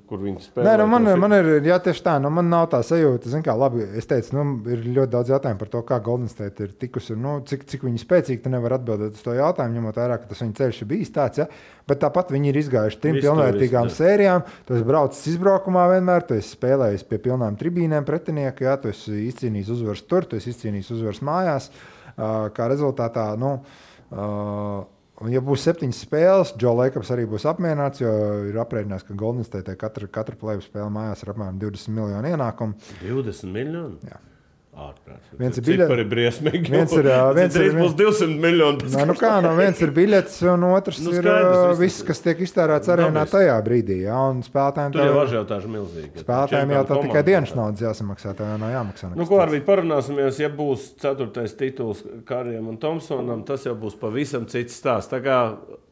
B: kur viņi spēlē.
C: Nē, man ir, jā, tieši tā, man nav tā sajūta, labi, es teicu, ir ļoti daudz jautājumu par to, kā Golden State ir tikusi, cik viņi spēcīgi, tu nevar atbildēt uz to jautājumu, ņemot vairāk, ka tas viņa ceļš ir bijis tāds, ja? Bet tāpat viņi ir izgājuši 3 pilnvērtīgām sērijām, tu esi braucis izbraukumā vienmēr, tu esi spēlējis pie pilnām tribīnēm pretinieku, ja? Tu esi izcīnījis uzvaras tur, tu esi izcīnījis uzvaras mājās, kā rezultātā, un, ja būs 7 spēles, Joe Lakers arī būs apmierināts, jo ir aprēķināts, ka Golden State katra play-off spēle mājās ir apmēram 20 miljonu ienākumu.
B: 20 miljoni?
C: Jā. Viens ir biļets.
B: Cipari briesmīgi.
C: Viens ir
B: būs 200 miljoni.
C: Viens ir biļets, un otrs ir viss, kas tiek iztērēts arēnā tajā brīdī. Ja, un spēlētājiem
B: tur jau ažiotāži milzīgi.
C: Spēlētājiem jau tā tikai dienas naudas jāsamaksā, tā jau nav jāmaksā.
B: Ko arī parunāsimies, ja būs 4. tituls Karijam un Tomsonam, tas jau būs pavisam cits stāsts. Tā kā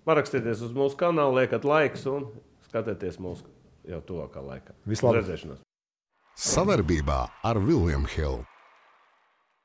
B: parakstieties uz mūsu kanālu, liekat laiks un skatieties mūsu jau tuvākā laikā.
C: Vislabāk!
A: Sadarbībā ar William Hill.